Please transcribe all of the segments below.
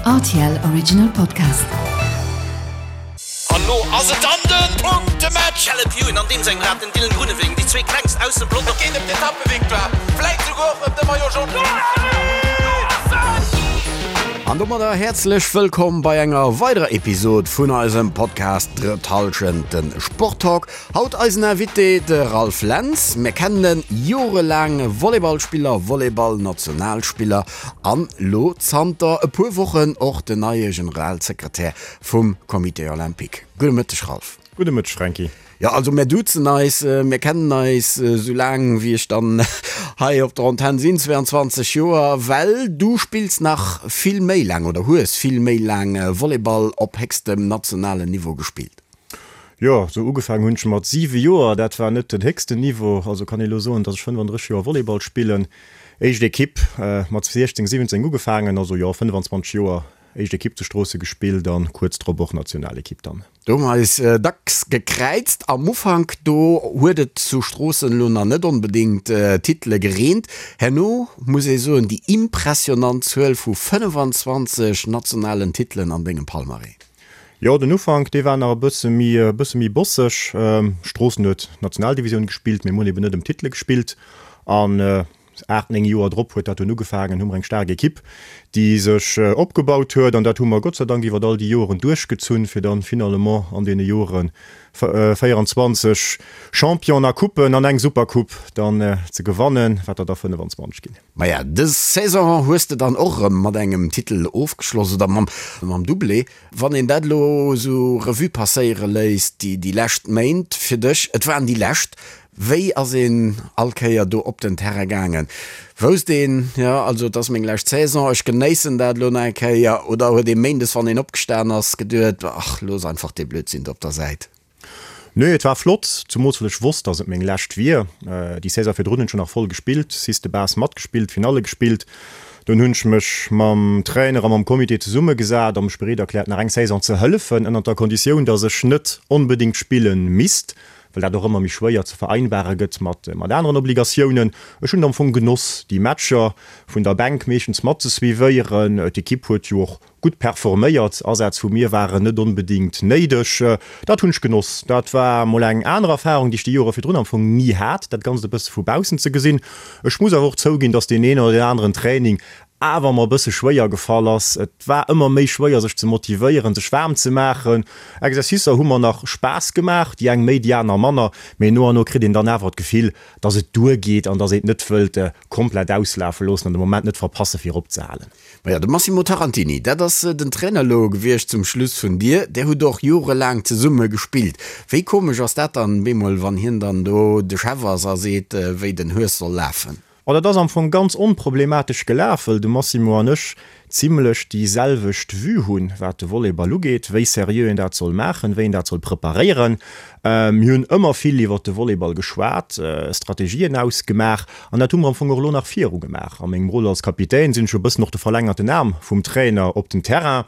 Rtl Original Podcast. An lo ass et dann den Punktematch! Caleb Ewan an deem sengem Rad, den Dylan Groenewegen, déi zwee klengst aus dem Pelotong. Et geet ëm d'Etappevictoire, vläit souguer och ëm de Maillot Jaune. An domadder häerzlech wëllkomm bei enger weiderer Episod vun eisem Podcast Drëtt Hallschent, den Sporttalk. Haut eisen Invité, de Ralph Lentz. Mir kennen en, jorelaang Volleyballspiller, Volleyball-Nationalspiller an lo zanter e puer Wochen och den neie Generalsekretär vum Comité Olympique. Gudde Mëtteg Ralph. Gudde Mëtteg Franky. Jo, also mär duzen eis, mir kennen eis esou laang wéi ech dann hei op der Antenn sinn, 22 Joer, well du spills nach vill méi laang oder hues vill méi laang Volleyball op héchstem nationalen Niveau gespillt. Jo, sou ugefaangen hunn ech mat 7 Joer. Dat war net den héchsten Niveau. Also kann ee lo soen, dass ech 35 Joer Volleyball spillen. Éischt Ekipp mat 16, 17 ugefaangen, also jo 25 Joer éischt Ekipp zu Stroosse gespillt an kuerz drop och Nationalekipp dann. Do hu mer eis dacks gekräizt. Am Ufank do huet et zu Stroossen elo nach net onbedéngt Titele gereent. Herno muss ee soen, déi impressionant Zuel vu 25 nationalen Titelen an dengem Palmarès. Jo, den Ufank, dee war nach e bësse méi, e bësse méi bosseg. Stroossen huet d'Nationaldivisioun gespillt, mee mir hunn eben net ëm Titele gespillt. An 8, 9 Joer drop huet dat dunn ugefaangen, hu mer eng staark Ekipp, déi sech opgebaut huet. An dat hu mer Gott sei Dank iwwer all déi Joeren duerchgezunn, fir dann finalement an deene Jore 24 Champion a Coupen an eng Supercoupe dann ze gewannen, wat der da 25 ginn. Maja, dës Saison hues de dann och erëm mat engem Titel ofgeschloss, oder mam Doublé. Wann een dat elo esou Revue passéiere léisst, déi lescht Méint fir dech, et waren déi lescht, wéi ass een all Kéier do op den Terrain gaangen? Wousst een, jo, also et ass meng lescht Saison, ech genéissen dat elo nach eng Kéier, oder huet ee méindes, wann een opgestan ass, geduet, ach, looss einfach dee Blödsinn do op der Säit? Nee, et war flott, zumools well ech wosst, dass et meng lescht wier. Déi Saison virdrun hunn ech jo nach voll gespillt, Six de Base matgespillt, Finalle gespillt. Dunn hunn ech mech mam Trainer a mam Comité zesummegesat a mech bereet erkläert, nach eng Saison ze hëllefen, ënnert der Konditioun, dass ech net onbedéngt spille misst, well dat och ëmmer méi schwéier ze vereinbare gëtt mat aneren Obligatiounen. Ech hunn et am Fong genoss, déi Matcher vun der Bänk meeschtens mat ze suivéieren. D'Ekipp huet jo och Gutt performéiert, Asätz vu mir waren net onbedingt néideg. Dat hunn ech genoss. Dat war mol eng aner Erfarung, déi ech déi Jore virdrun am Fong ni hat, dat Ganzt e bësse vu baussen ze gesinn. Ech muss awer och zouginn, dass deen een oder deen aneren Training awer mer e bësse schwéier gefall ass. Et war ëmmer méi schwéier sech ze motivéieren, sech waarm ze maachen. Exercicer hu mer nach Spaass gemaach, déi eng méi, déi aner manner, mee no an no kritt een dann awer d'Gefill, dass et duergeet an dass een et net wëllt komplett auslafe loossen an de Moment net verpasse fir eropzehalen. Maja, de Massimo Tarantini, dat ass den Trainer elo gewiescht zum Schluss vun dir. Där hutt och jorelaang zesumme gespillt. Wéi komesch ass dat dann bemol, wann hien dann do de Chef ass a seet, wéi den Hues soll lafen? Oh, dat ass am Fong ganz onproblematesch gelaf, wëll de Massimo an ech zimlech déi selwecht Vue hunn, wat de Volleyball ugeet, wéi seriö een dat soll maachen, wéi een dat soll preparéieren. Mir hunn ëmmer vill iwwert de Volleyball geschwat, Strategien ausgemaach an dat hu mer am Fong och elo nach viru gemaach. A mengem Rôle als Kapitän sinn ech jo e bëssen och de verlängerten Aarm vum Trainer op den Terrain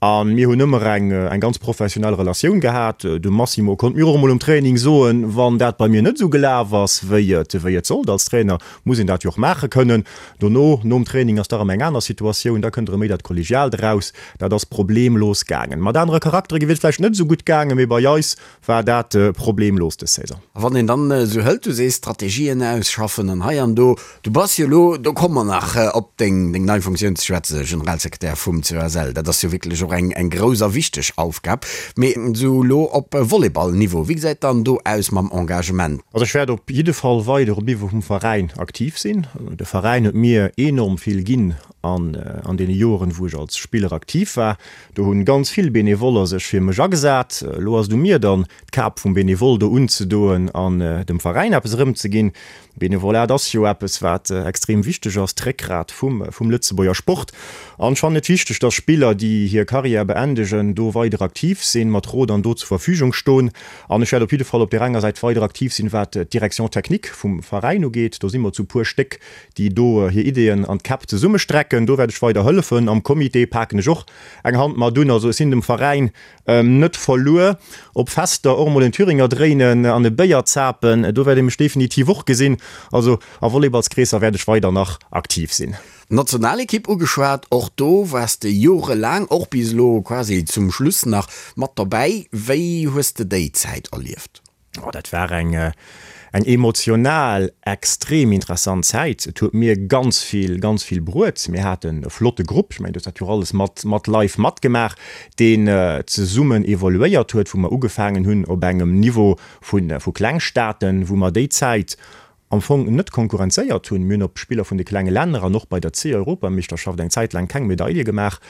a mir hunn ëmmer eng eng ganz professionell Relatioun gehat. De Massimo konnt mir och emol um Training soen, wann dat bei mir net esou gelaf ass, wéi et wéi et sollt. Als Trainer muss een dat jo och maache kënnen. Dono, nom Training ass da erëm eng aner Situatioun, da kënnt erëm méi dat Kollegiaalt eraus. Dat ass problemlos gaangen. Mat anere Charaktere wier et vläicht net esou gutt gaangen, mee bei eis war dat problemlos dës Saison. A wann een dann esou hëlt, du sees Strategien ausschaffen an hei an do, du bass jo elo, do komme mer nach op deng nei Funktioun ze schwätzen, Generalsekretär vum COSL, dat ass jo wierklech och eng grouss a wichteg Aufgab, mee esou elo op Volleyball-Niveau, wéi gesäit dann do aus mam Engagement? Also ech wäert op jidde Fall weider um Niveau vum Veräin aktiv sinn. De Veräin huet mir enorm vill ginn an an deene Joren, wou ech als Spiller aktiv war. Do hunn ganz vill Benevoller sech fir mech agesat. Elo ass et u mir dann, d'Kap vum Benevole do unzedoen an dem Veräin eppes erëmzeginn. Benevolat ass jo eppes, wat extrem wichteg ass, d'Réckgrat vum vum Lëtzebuerger Sport. An ech fannen et wichteg, dass Spiller, déi hir. Karriär beendegen, do weider aktiv sinn, mat Rot an Dot zur Verfügung stoen. An ech wäert op jidde Fall op där enger Säit weider aktiv sinn, wat d'Direction technique vum Veräin ugeet. Do si mer zu puer Stéck, déi do hir Ideeën an d'Käpp zesummestrecken. Do wäert ech weider hëllefen. Am Comité paken ech och eng Hand mat un. Also ech sinn dem Veräin net verluer. Op Fester och emol en Thüringer dréinen an e Béier zapen, do wäert ee mech definitiv och gesinn. Also a Volleyballskreesser wäert ech weider nach aktiv sinn. D'Nationalekipp ugeschwat, och do waars de jorelaang, och bis elo quasi zum Schluss nach, mat dobäi. Wéi hues de déi Zäit erlieft? Oh, dat war eng eng emotional extrem interessant Zäit. Et huet mir ganz vill, ganz vill bruet. Mir haten e flotte Grupp, ech mengen, du hues dat jo och alles mat mat live matgemaach, deen zesummen evoluéiert huet, wou mer ugefaangen hunn op engem Niveau vu vu Klengstaaten, wou mer déi Zäit am Fong net konkurrenzéiert hunn. Mir hunn op Spiller vun de klenge Länner an och bei der C-Europameeschterschaft eng Zäit laang keng Medaile gemaach.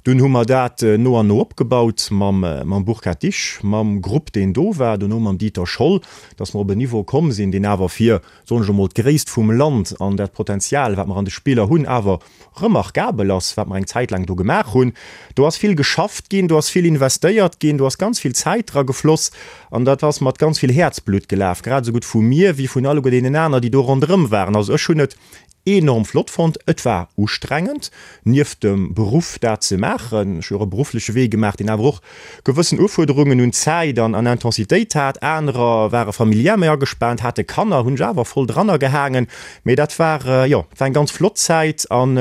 Dunn hu mer dat no an no opgebaut mam mam Burkhard Disch, mam Grupp deen do war, dono mam Dieter Scholl, datt mer op en Niveau komm sinn, deen awer fir, soen ech emol, d'Gréisst vum Land an dat Potenzial wat mer an de Spiller hunn, awer remarkabel ass, wat mer eng Zäit laang do gemaach hunn. Do ass vill geschafft ginn, do ass vill investéiert ginn, do ass ganz vill Zäit dra gefloss an dat ass mat ganz vill Häerzblutt gelaf, grad esou gutt vu mir wéi vun alleguer deenen aner, déi do ronderëm waren. Also ech hunn et enorm flott fonnt. Et war ustrengend, nieft dem Beruff dat ze maachen. Ech hu jo och e beruffleche Wee gemaach, deen awer och gewëssen Ufuerderungen un Zäit an an Intensitéit hat. Anerer ware familiär méi agespaant, hate Kanner, hunn sech awer voll dranner gehaangen. Mee dat war, jo, et war eng ganz flott Zäit an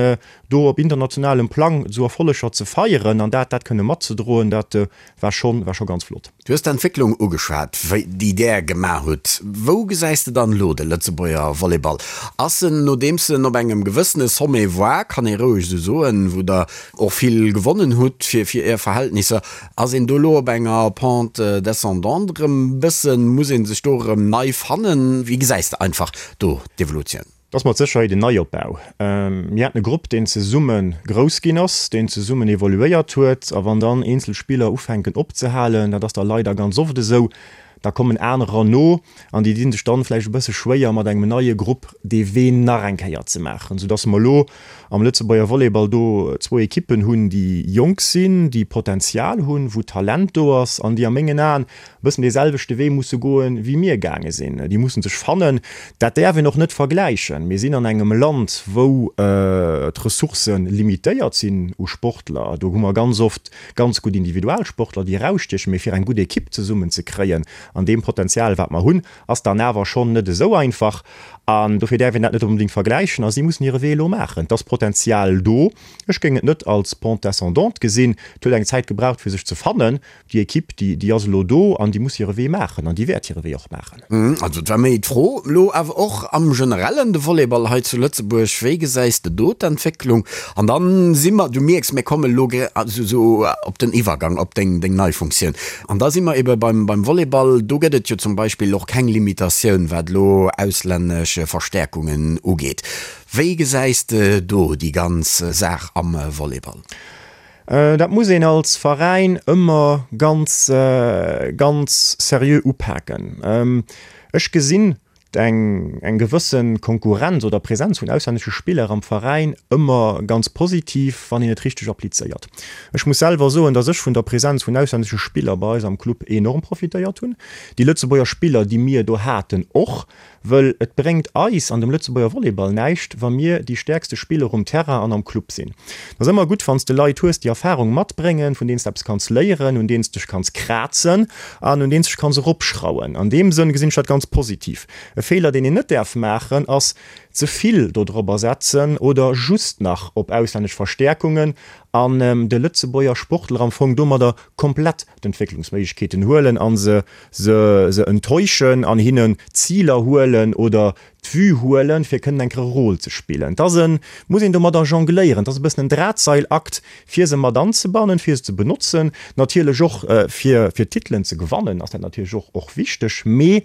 do op internationalem Plang esou Erfolleger ze feieren an dat dat kënne matzedroen, dat war schonn, war scho ganz flott. Du hues d'Entwécklung ugeschwat, wéi déi Där gemaach hutt. Wou gesäis de dann elo de Lëtzebuerger Volleyball? Ass en, nodeems en op engem gewëssene Sommet war, kann ee roueg esou soen, wou Der och vill gewonnen hutt fir fir Är Verhältnisser, ass een do elo op enger Pente descendante erëm bëssen? Muss ee sech do erëm nei fannen? Wéi gesäis de einfach do d'Evolutioun? Et ass mat Sécherheet en Neiopbau. Mir haten e Grupp, deen zesumme grouss ginn ass, deen zesummen evoluéiert huet. A wann dann eenzel Spiller ufänken opzehalen, dat ass da leider ganz oft esou, da kommen anerer no an déi di sech dann vläicht e bësse schwéier, mat engem neie Grupp dee Wee nach eng Kéier ze maachen, soudass mer elo am Lëtzebuerger Volleyball do zwou Ekippen hunn, déi jonk sinn, déi Potenzial hunn, wou Talent do ass an déi a mengen Aen e bëssen dee selwechte Wee musse goen, wéi mir gaange sinn. Déi musse sech fannen. Dat däerf een och net vergläichen. Mir sinn an engem Land, wou d'Ressourcë limitéiert sinn u Sportler. Do hu mer ganz oft ganz gutt Individualsportler, déi erausstiechen, mee fir eng gutt Ekipp zesummen ze kréien an deem Potenzial, wat mer hunn, ass dann awer schonn net esou einfach. An dofir däerf een dat net onbedéngt vergläichen. A si mussen hire Wee elo maachen. Et ass Potenzial do. Ech géing et net als Pente descendante gesinn. Et huet eng Zäit gebraucht, fir sech ze fannen. Déi Ekipp, déi, déi ass elo do an déi muss hire Wee maachen an déi wäert hire Wee och maachen. Also et war méi d'Fro elo awer och am Generellen, de Volleyball hei zu Lëtzebuerg, wéi gesäis de do d'Entwécklung? An dann si mer, du mierks, mir kommen elo esou op den Iwwergang op deng, deng nei Funktioun. An da si mer ebe beim, beim Volleyball, do gëtt et jo zum Beispill och keng Limitatioun, wat elo auslännesch Verstäerkungen ugeet. Wéi gesäis de do déi ganz Saach am Volleyball? Dat muss een als Veräin ëmmer ganz, ganz seriö upaken. Ech gesinn eng, eng gewësse Konkurrenz oder Präsenz vun auslännesche Spiller am Veräin ëmmer ganz positiv, wann een et richteg applizéiert. Ech muss selwer soen, datt ech vun der Präsenz vun auslännesche Spiller bei eis am Club enorm profitéiert hunn. Déi Lëtzebuerger Spiller, déi mir do haten, och. Wëll et bréngt eis an dem Lëtzebuerger Volleyball näischt, wa mir déi stäerkste Spiller um Terrain an am Club sinn. Et ass ëmmer gutt, wann s de Leit hues, déi Erfarung matbréngen, vun deenen s de eppes kanns léieren, un deenen s dech kanns krazen an un deenen s dech kanns eropschrauen. An deem Sënn gesinn ech dat ganz positiv. E Feeler, deen een net däerf maachen, ass, ze vill dodrobber setzen oder just nach op auslännesch Verstäerkungen an de Lëtzebuerger Sportler am Fong domadder komplett d'Entwécklungsméiglechkeeten huelen a se se se enttäuschen an hinnen d'Ziler huelen oder d'Vue huelen, fir kënnen eng Kéier e Rôle ze spillen. Et ass en, muss een domadder jongléieren, et ass e bëssen en Drahtseilakt, fir se mat anzebannen, fir se ze benotzen, natierlech och fir fir Titelen ze gewannen ass dat natierlech och och wichteg, mee.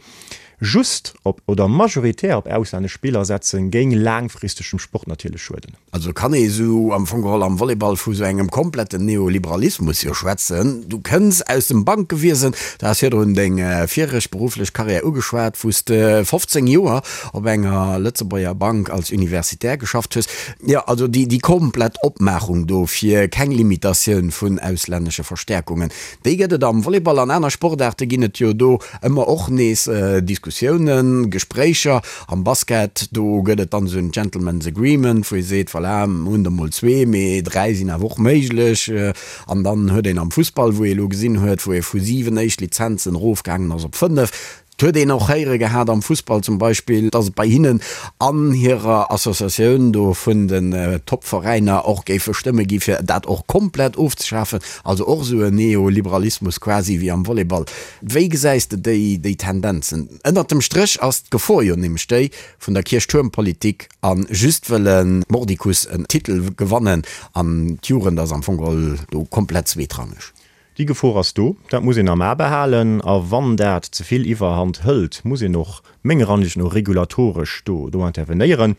Just op oder majoritär op auslännesch Spiller setzen, géing laangfristeg dem Sport natierlech schueden. Also kann ee sou am Fong geholl am Volleyball vu sou engem kompletten Neoliberalismus jo schwätzen. Du kënns aus dem Bankewiesen, du has virdrun deng viregt berufflech Karriär ugeschwat, wou s de 15 Joer op enger Lëtzebuerger Bank als Universitär geschafft hues. Jo, also déi komplett Opmaachung do fir keng Limitatioun vun auslännesche Verstäerkungen, déi gëtt et am Volleyball. An aner Sportaarte ginn et jo do ëmmer och nees Diskussiounen, Gespréicher. Am Basket, do gëtt et dann esou en Gentleman's Agreement, wou ee seet, voilà, mir hunn der mol zwee, mee dräi sinn awer och méiglech. An dann huet een am Fussball, wou ee elo gesinn huet, wou ee vu siwen éischt Lizenzen erofgaangen ass op fënnef, Et huet een och héiere gehat am Fussball zum Beispill, datt et bei hinnen an hirer Associatioun do vun den Top-Veräiner och géife Stëmme gi fir dat och komplett ofzeschafen, also och esou en Neoliberalismus quasi wéi am Volleyball. Wéi gesäis de déi déi Tendenzen? Ënnert dem Stréch ass d'Gefor jo nämlech déi vun der Kierchtuermpolitik a just wëlle mordicus en Titel gewannen an d'Jugend ass am Fong geholl do komplett zweetrangeg. Déi Gefor ass do, dat muss een am A behalen. A wann dat ze vill Iwwerhand hëlt, muss een och menger Ansicht no regulatoresch do do intervenéieren.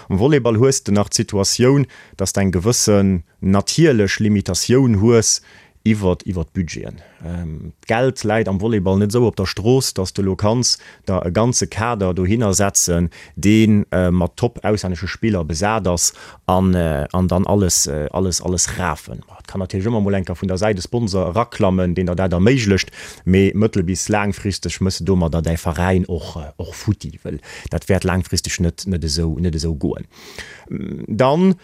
Am Volleyball hues de nach d'Situatioun, dass de eng gewëssen natierlech Limitatioun hues iwwer iwwer d'Budgeten. D'Geld läit am Volleyball net esou op der Strooss, dass de elo kanns der e ganze Kader dohinner setzen, dee mat top auslännesche Spiller besat ass an an dann alles alles alles rafen. Et kann natierlech ëmmer mol enker vun der Säit e Sponsor eraklammen, deen der dat erméiglecht, mee mëttel bis laangfristeg mëss de domadder däi Veräin och och futti, wëll dat wäert laangfristeg net net esou net esou goen. Dann,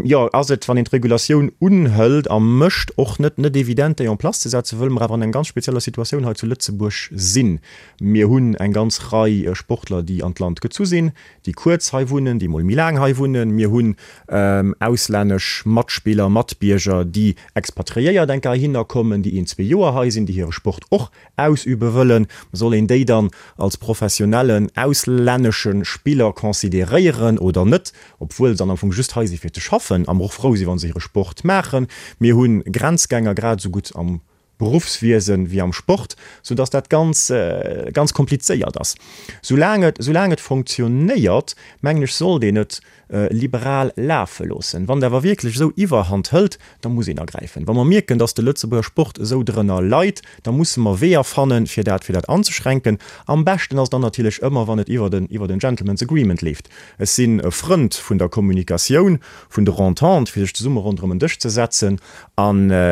jo, ass et, wann een d'Regulatioun unhëlt a mécht, och net net evident, déi en place ze setzen, wëll mer awer an eng ganz spezieller Situatioun hei zu Lëtzebuerg sinn. Mir hunn eng ganz Rei Sportler, déi an d'Land gezu sinn, déi kuerz hei wunnen, déi mol méi laang hei wunnen. Mir hunn auslännesch Matspiller, Matbierger, déi expatriéiert enker heihinner kommen, déi een, zwee Joer hei sinn, déi hire Sport och ausübe wëllen. Soll een déi dann als professionellen auslännesche Spiller consideréieren oder net, obwuel se dann am Fong just hei si fir ze schaffen a mer och frou si wa se hire Sport maachen? Mir hu Grenzgänger grad esou gutt am Beruffswiesen wéi am Sport, sou dass dat ganz, ganz komplizéiert ass. Soulaang et, soulaang et fonctionnéiert, mengen ech, sollt een et liberal lafe loossen. Wann et awer wierklech esou Iwwerhand hëlt, da muss een agräifen. Wa mer mierken, dass de Lëtzebuerger Sport esou drënner leit, da musse mer Weeër fannen, fir dat, fir dat anzeschränken. Am beschten ass et dann natierlech ëmmer, wann et iwwer en, iwwer en Gentleman's Agreement leeft. Ech sinn e Frënd vun der Kommunikatioun, vun der Entente, fir sech zesumme ronderëm en Dësch ze setzen a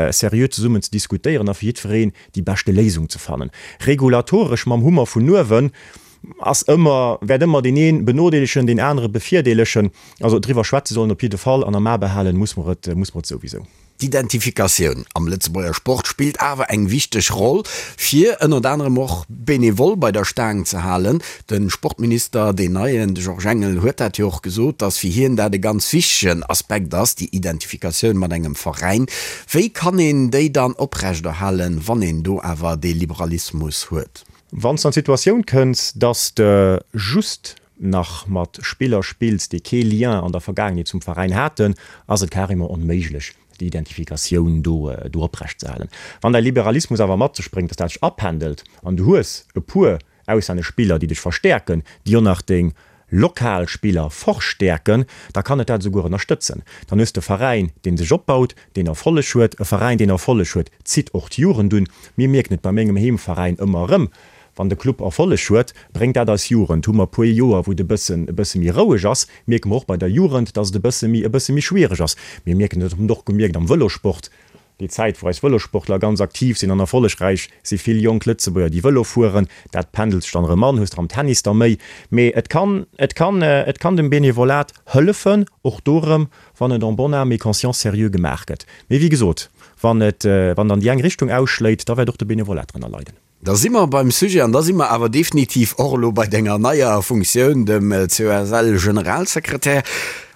seriö zesummen ze diskutéieren a fir jiddwereen déi beschte Léisung ze fannen. Regulatoresch mam Hummer vun uewen ass ëmmer, wäert ëmmer deen ee benodeelegen, deen anere bevirdeelegen. Also driwwer schwätze sollen op jidde Fall an am A behalen muss mer et, muss mer et souwisou. D'Identifikatioun am Lëtzebuerger Sport spillt awer eng wichteg Roll, fir ënnert anerem och Benevole bei der Staang ze halen. De Sportminister, deen neien, de Georges Engel, huet dat jo och gesot, datt fir hien dat e ganz wichtegen Aspekt ass, déi Identifikatioun mat engem Veräin. Wéi kann een déi dann oprechterhalen, wann een do awer dee Liberalismus huet? Wann s de an d'Situatioun kënns, datt s de just nach mat Spiller spills, déi kee Lien an der Vergaangenheet zum Veräin haten, ass et carrément onméiglech, déi Identifikatioun do do oprecht ze halen. Wann däi Liberalismus awer mat sech bréngt, dass dat sech apendelt an du hues e puer auslännesch Spiller, déi dech verstäerken, déi och nach deng lokal Spiller verstäerken, da kann et dat esouguer ënnerstëtzen. Dann hues de e Veräin, dee sech opbaut, deen Erfolleg huet. E Veräin, deen Erfolleg huet, zitt och d'Jugend un. Mir mierken et bei mengem Heemveräin ëmmer erëm, Wann de Club Erfolleg huet, bréngt dat eis Jugend. Hu mer e puer Joer, wou et e bëssen, e bësse méi roueg ass, mierke mer och bei der Jugend, dass et e bësse méi, e bësse méi schwiereg ass. Mir mierken et, hunn et och gemierkt am Vëlosport, déi Zäit, wou eis Vëlosportler ganz aktiv sinn an erfollegräich, si vill jonk Lëtzebuerger, déi Vëlo fueren. Dat pendelt sech dann erëm an, hues der am Tennis der méi. Mee et kann, et kann, et kann dem Benevolat hëllefen, och do erëm, wann et en bonne âme et conscience sérieux gemaach gëtt. Mee wéi gesot, wann et, wann et an déi eng Richtung ausschléit, da wäert och de Benevolat drënner leiden. Da si mer beim Sujet an da si mer awer definitiv och elo bei denger neier Funktioun, dem COSL-Generalsekretär.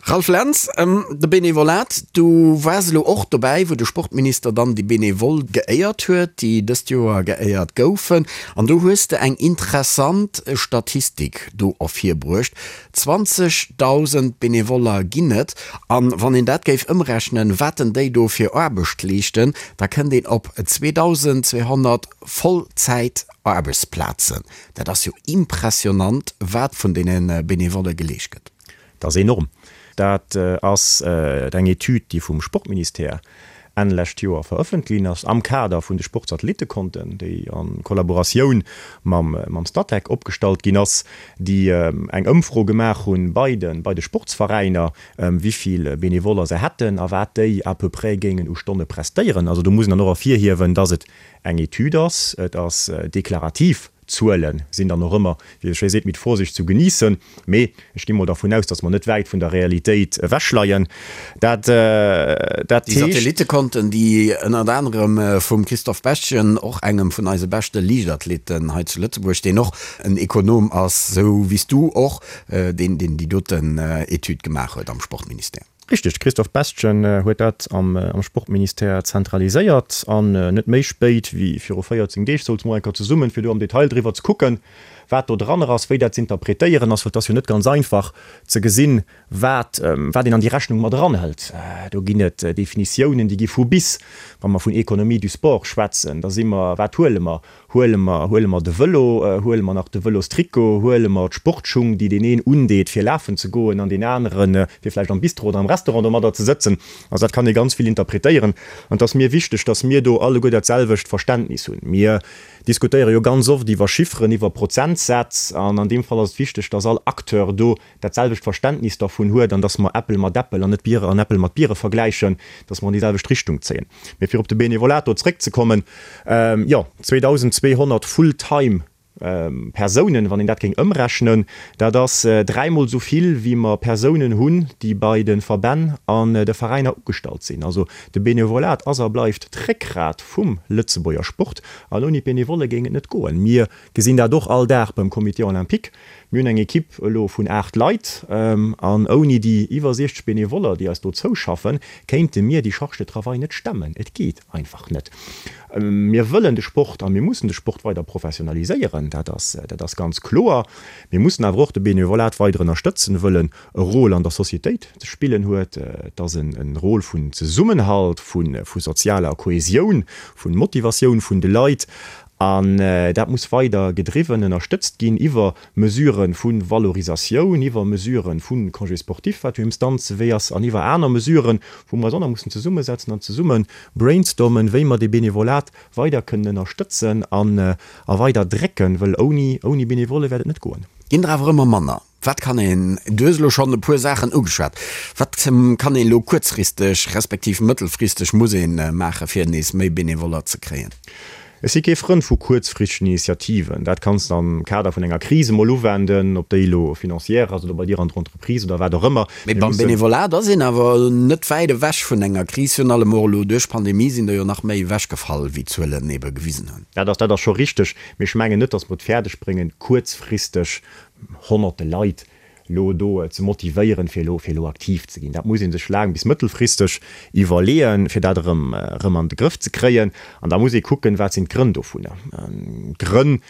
Ralph Lentz, De Benevolat, du waars elo och dobäi, wou de Sportminister dann déi Benevole geéiert huet, déi dëst Joer geéiert goufen. An do hues de eng interessant Statistik do ervirbruecht, 20.000 Benevoller ginn et. An wann een dat géif ëmrechnen, wat denn déi do fir Aarbecht leeschten, da kënnt een op 2.200 Vollzäit-Aarbechtsplazen. Dat ass jo impressionant, wat vun deene Benevolle geleescht gëtt. Dat ass enorm. Dat ass eng Etüd, déi vum Sportministère Enn lescht Joer verëffentlicht ginn ass, am Kader vun de Sportsatellittekonten, déi a Kollaboratioun mam Statec opgestallt ginn ass, déi eng Ëmfro gemaach hunn bei de bei de Sportsveräiner, wéi vill Benevoller se hätten a wat déi à peu près géingen u Stonne prestéieren. Also do muss een dann och ervirhiewen, dass et eng Etüd ass, et ass deklarativ. D'Zuele sinn dann och ëmmer, wéi ee schéi seet, mit Vorsicht zu genießen. Mee ech gi mol dervun aus, datt mer net wäit vun der Realitéit ewechleien. Dat, dat Déi heescht. Satellittekonten, déi ënnert anerem vum Christophe Bestgen, och engem vun eise beschte Liichtathleten hei zu Lëtzebuerg, deen och en Ekonom ass, esou wéi s du och, deen, deen déi doten Etüd gemaach huet am Sportministère. Richteg, de Christophe Bestgen huet dat am Sportministère zentraliséiert an net méi spéit wéi viru 14 Deeg souze mer eng Kéier zesummen, fir do am Detail driwwer ze kucken, wat do dran ass, wéi dat z'interpretéieren ass, well et ass jo net ganz einfach ze gesinn, wat wat een an déi Rechnung mat eranhëlt. Do ginn et Definitiounen, déi gi vu bis. Wa mer vun Économie du sport schwätzen, da si mer, wat huele mer? Huele mer, huele mer de Vëlo, huele mer nach de Vëlostrikot, huele mer d'Sportschung, déi deen een undeet fir lafen ze goen an deen aneren fir vläicht am Bistro oder am Restaurant domadder ze sëtzen. Also dat kann ee ganz vill interpretéieren. An et ass mir wichteg, datt mir do alleguer dat selwecht Verständnis hunn. Mir diskutéiere jo ganz oft iwwer Chifferen, iwwer Prozentsätz an an deem Fall ass et wichteg, datt all Acteur do dat selwecht Verständnis dervun huet an dass mer Äppel mat Äppel an net Biere an Äppel mat Biere vergläichen, dass mer an déi selwecht Richtung zéien. Mee fir op de Benevolat do zréckzekommen, jo, 2.200 full-time Persounen, wann een dat géing ëmrechnen, dat ass dräimol esou vill, wéi mer Persounen hunn, déi bei de Verbänn an de Veräiner ugestallt sinn. Also de Benevolat ass a bleift d'Réckgrat vum Lëtzebuerger Sport an ouni d'Benevolle géing et net goen. Mir gesinn dat och all Dag beim Comité olympique. Mir hunn eng Equipe elo vun 8 Leit, an ouni déi iwwer 60 Benevoller, déi eis do zouschaffen, kéinte mir déi Charge de travail net stemmen. Et geet einfach net. Mir wëllen de Sport a mir mussen de Sport weider professionaliséieren, dat ass, dat ass ganz kloer. Mir mussen awer och de Benevolat weider ënnerstëtzen, wëll en e Rôle an der Societéit ze spillen huet. Et ass en Rôle vun Zesummenhalt, vu sozialer Kohesioun, vu Motivatioun vun de Leit. An dat muss weider gedriwwen, ënnerstëtzt ginn iwwer Mesurë vu Valorisatioun, iwwer Mesurë vu Congé sportif, wat jo Instanzewee ass, an iwwer aner Mesuren, wou mer eis och nach mussen zesummesetzen an zesumme brainstormen, wéi mer dee Benevolat weider kënnen ënnerstëtzen an a weider drécken, wëll ouni, ouni Benevolle wäert et net goen. Ginn der awer ëmmer manner. Wat kann een, du hues elo schonn e puer Saachen ugeschwat, wat kann een elo kuerzfristeg respektiv mëttelfristeg muss ee maache fir nees méi Benevoller ze kréien? Ech si kee Frënd vu kuerzfristegen Initiativen. Dat kanns de am Kader vun enger Kris emol uwenden, ob déi elo financière ass oder bei dir an der Entreprise oder wat och ëmmer. Mee beim Benevolat ass een awer net wäit ewech vun enger Kris. Virun allem och elo duerch d'Pandemie sinn der jo nach méi ewechgefall, wéi d'Zuelen ebe gewisen hunn. Dat ass, dat ass scho richteg. Mee ech mengen net, datt mer et fäerdeg bréngen, kuerzfristeg honnerte Leit elo do ze motivéieren, fir elo, fir elo aktiv ze ginn. Dat muss ee sech laang bis mëttelfristeg iwwerleeën, fir dat erëm, erëm an de Grëff ze kréien. An da muss ee kucken, wat sinn d'Grënn dovunner. D'Grënn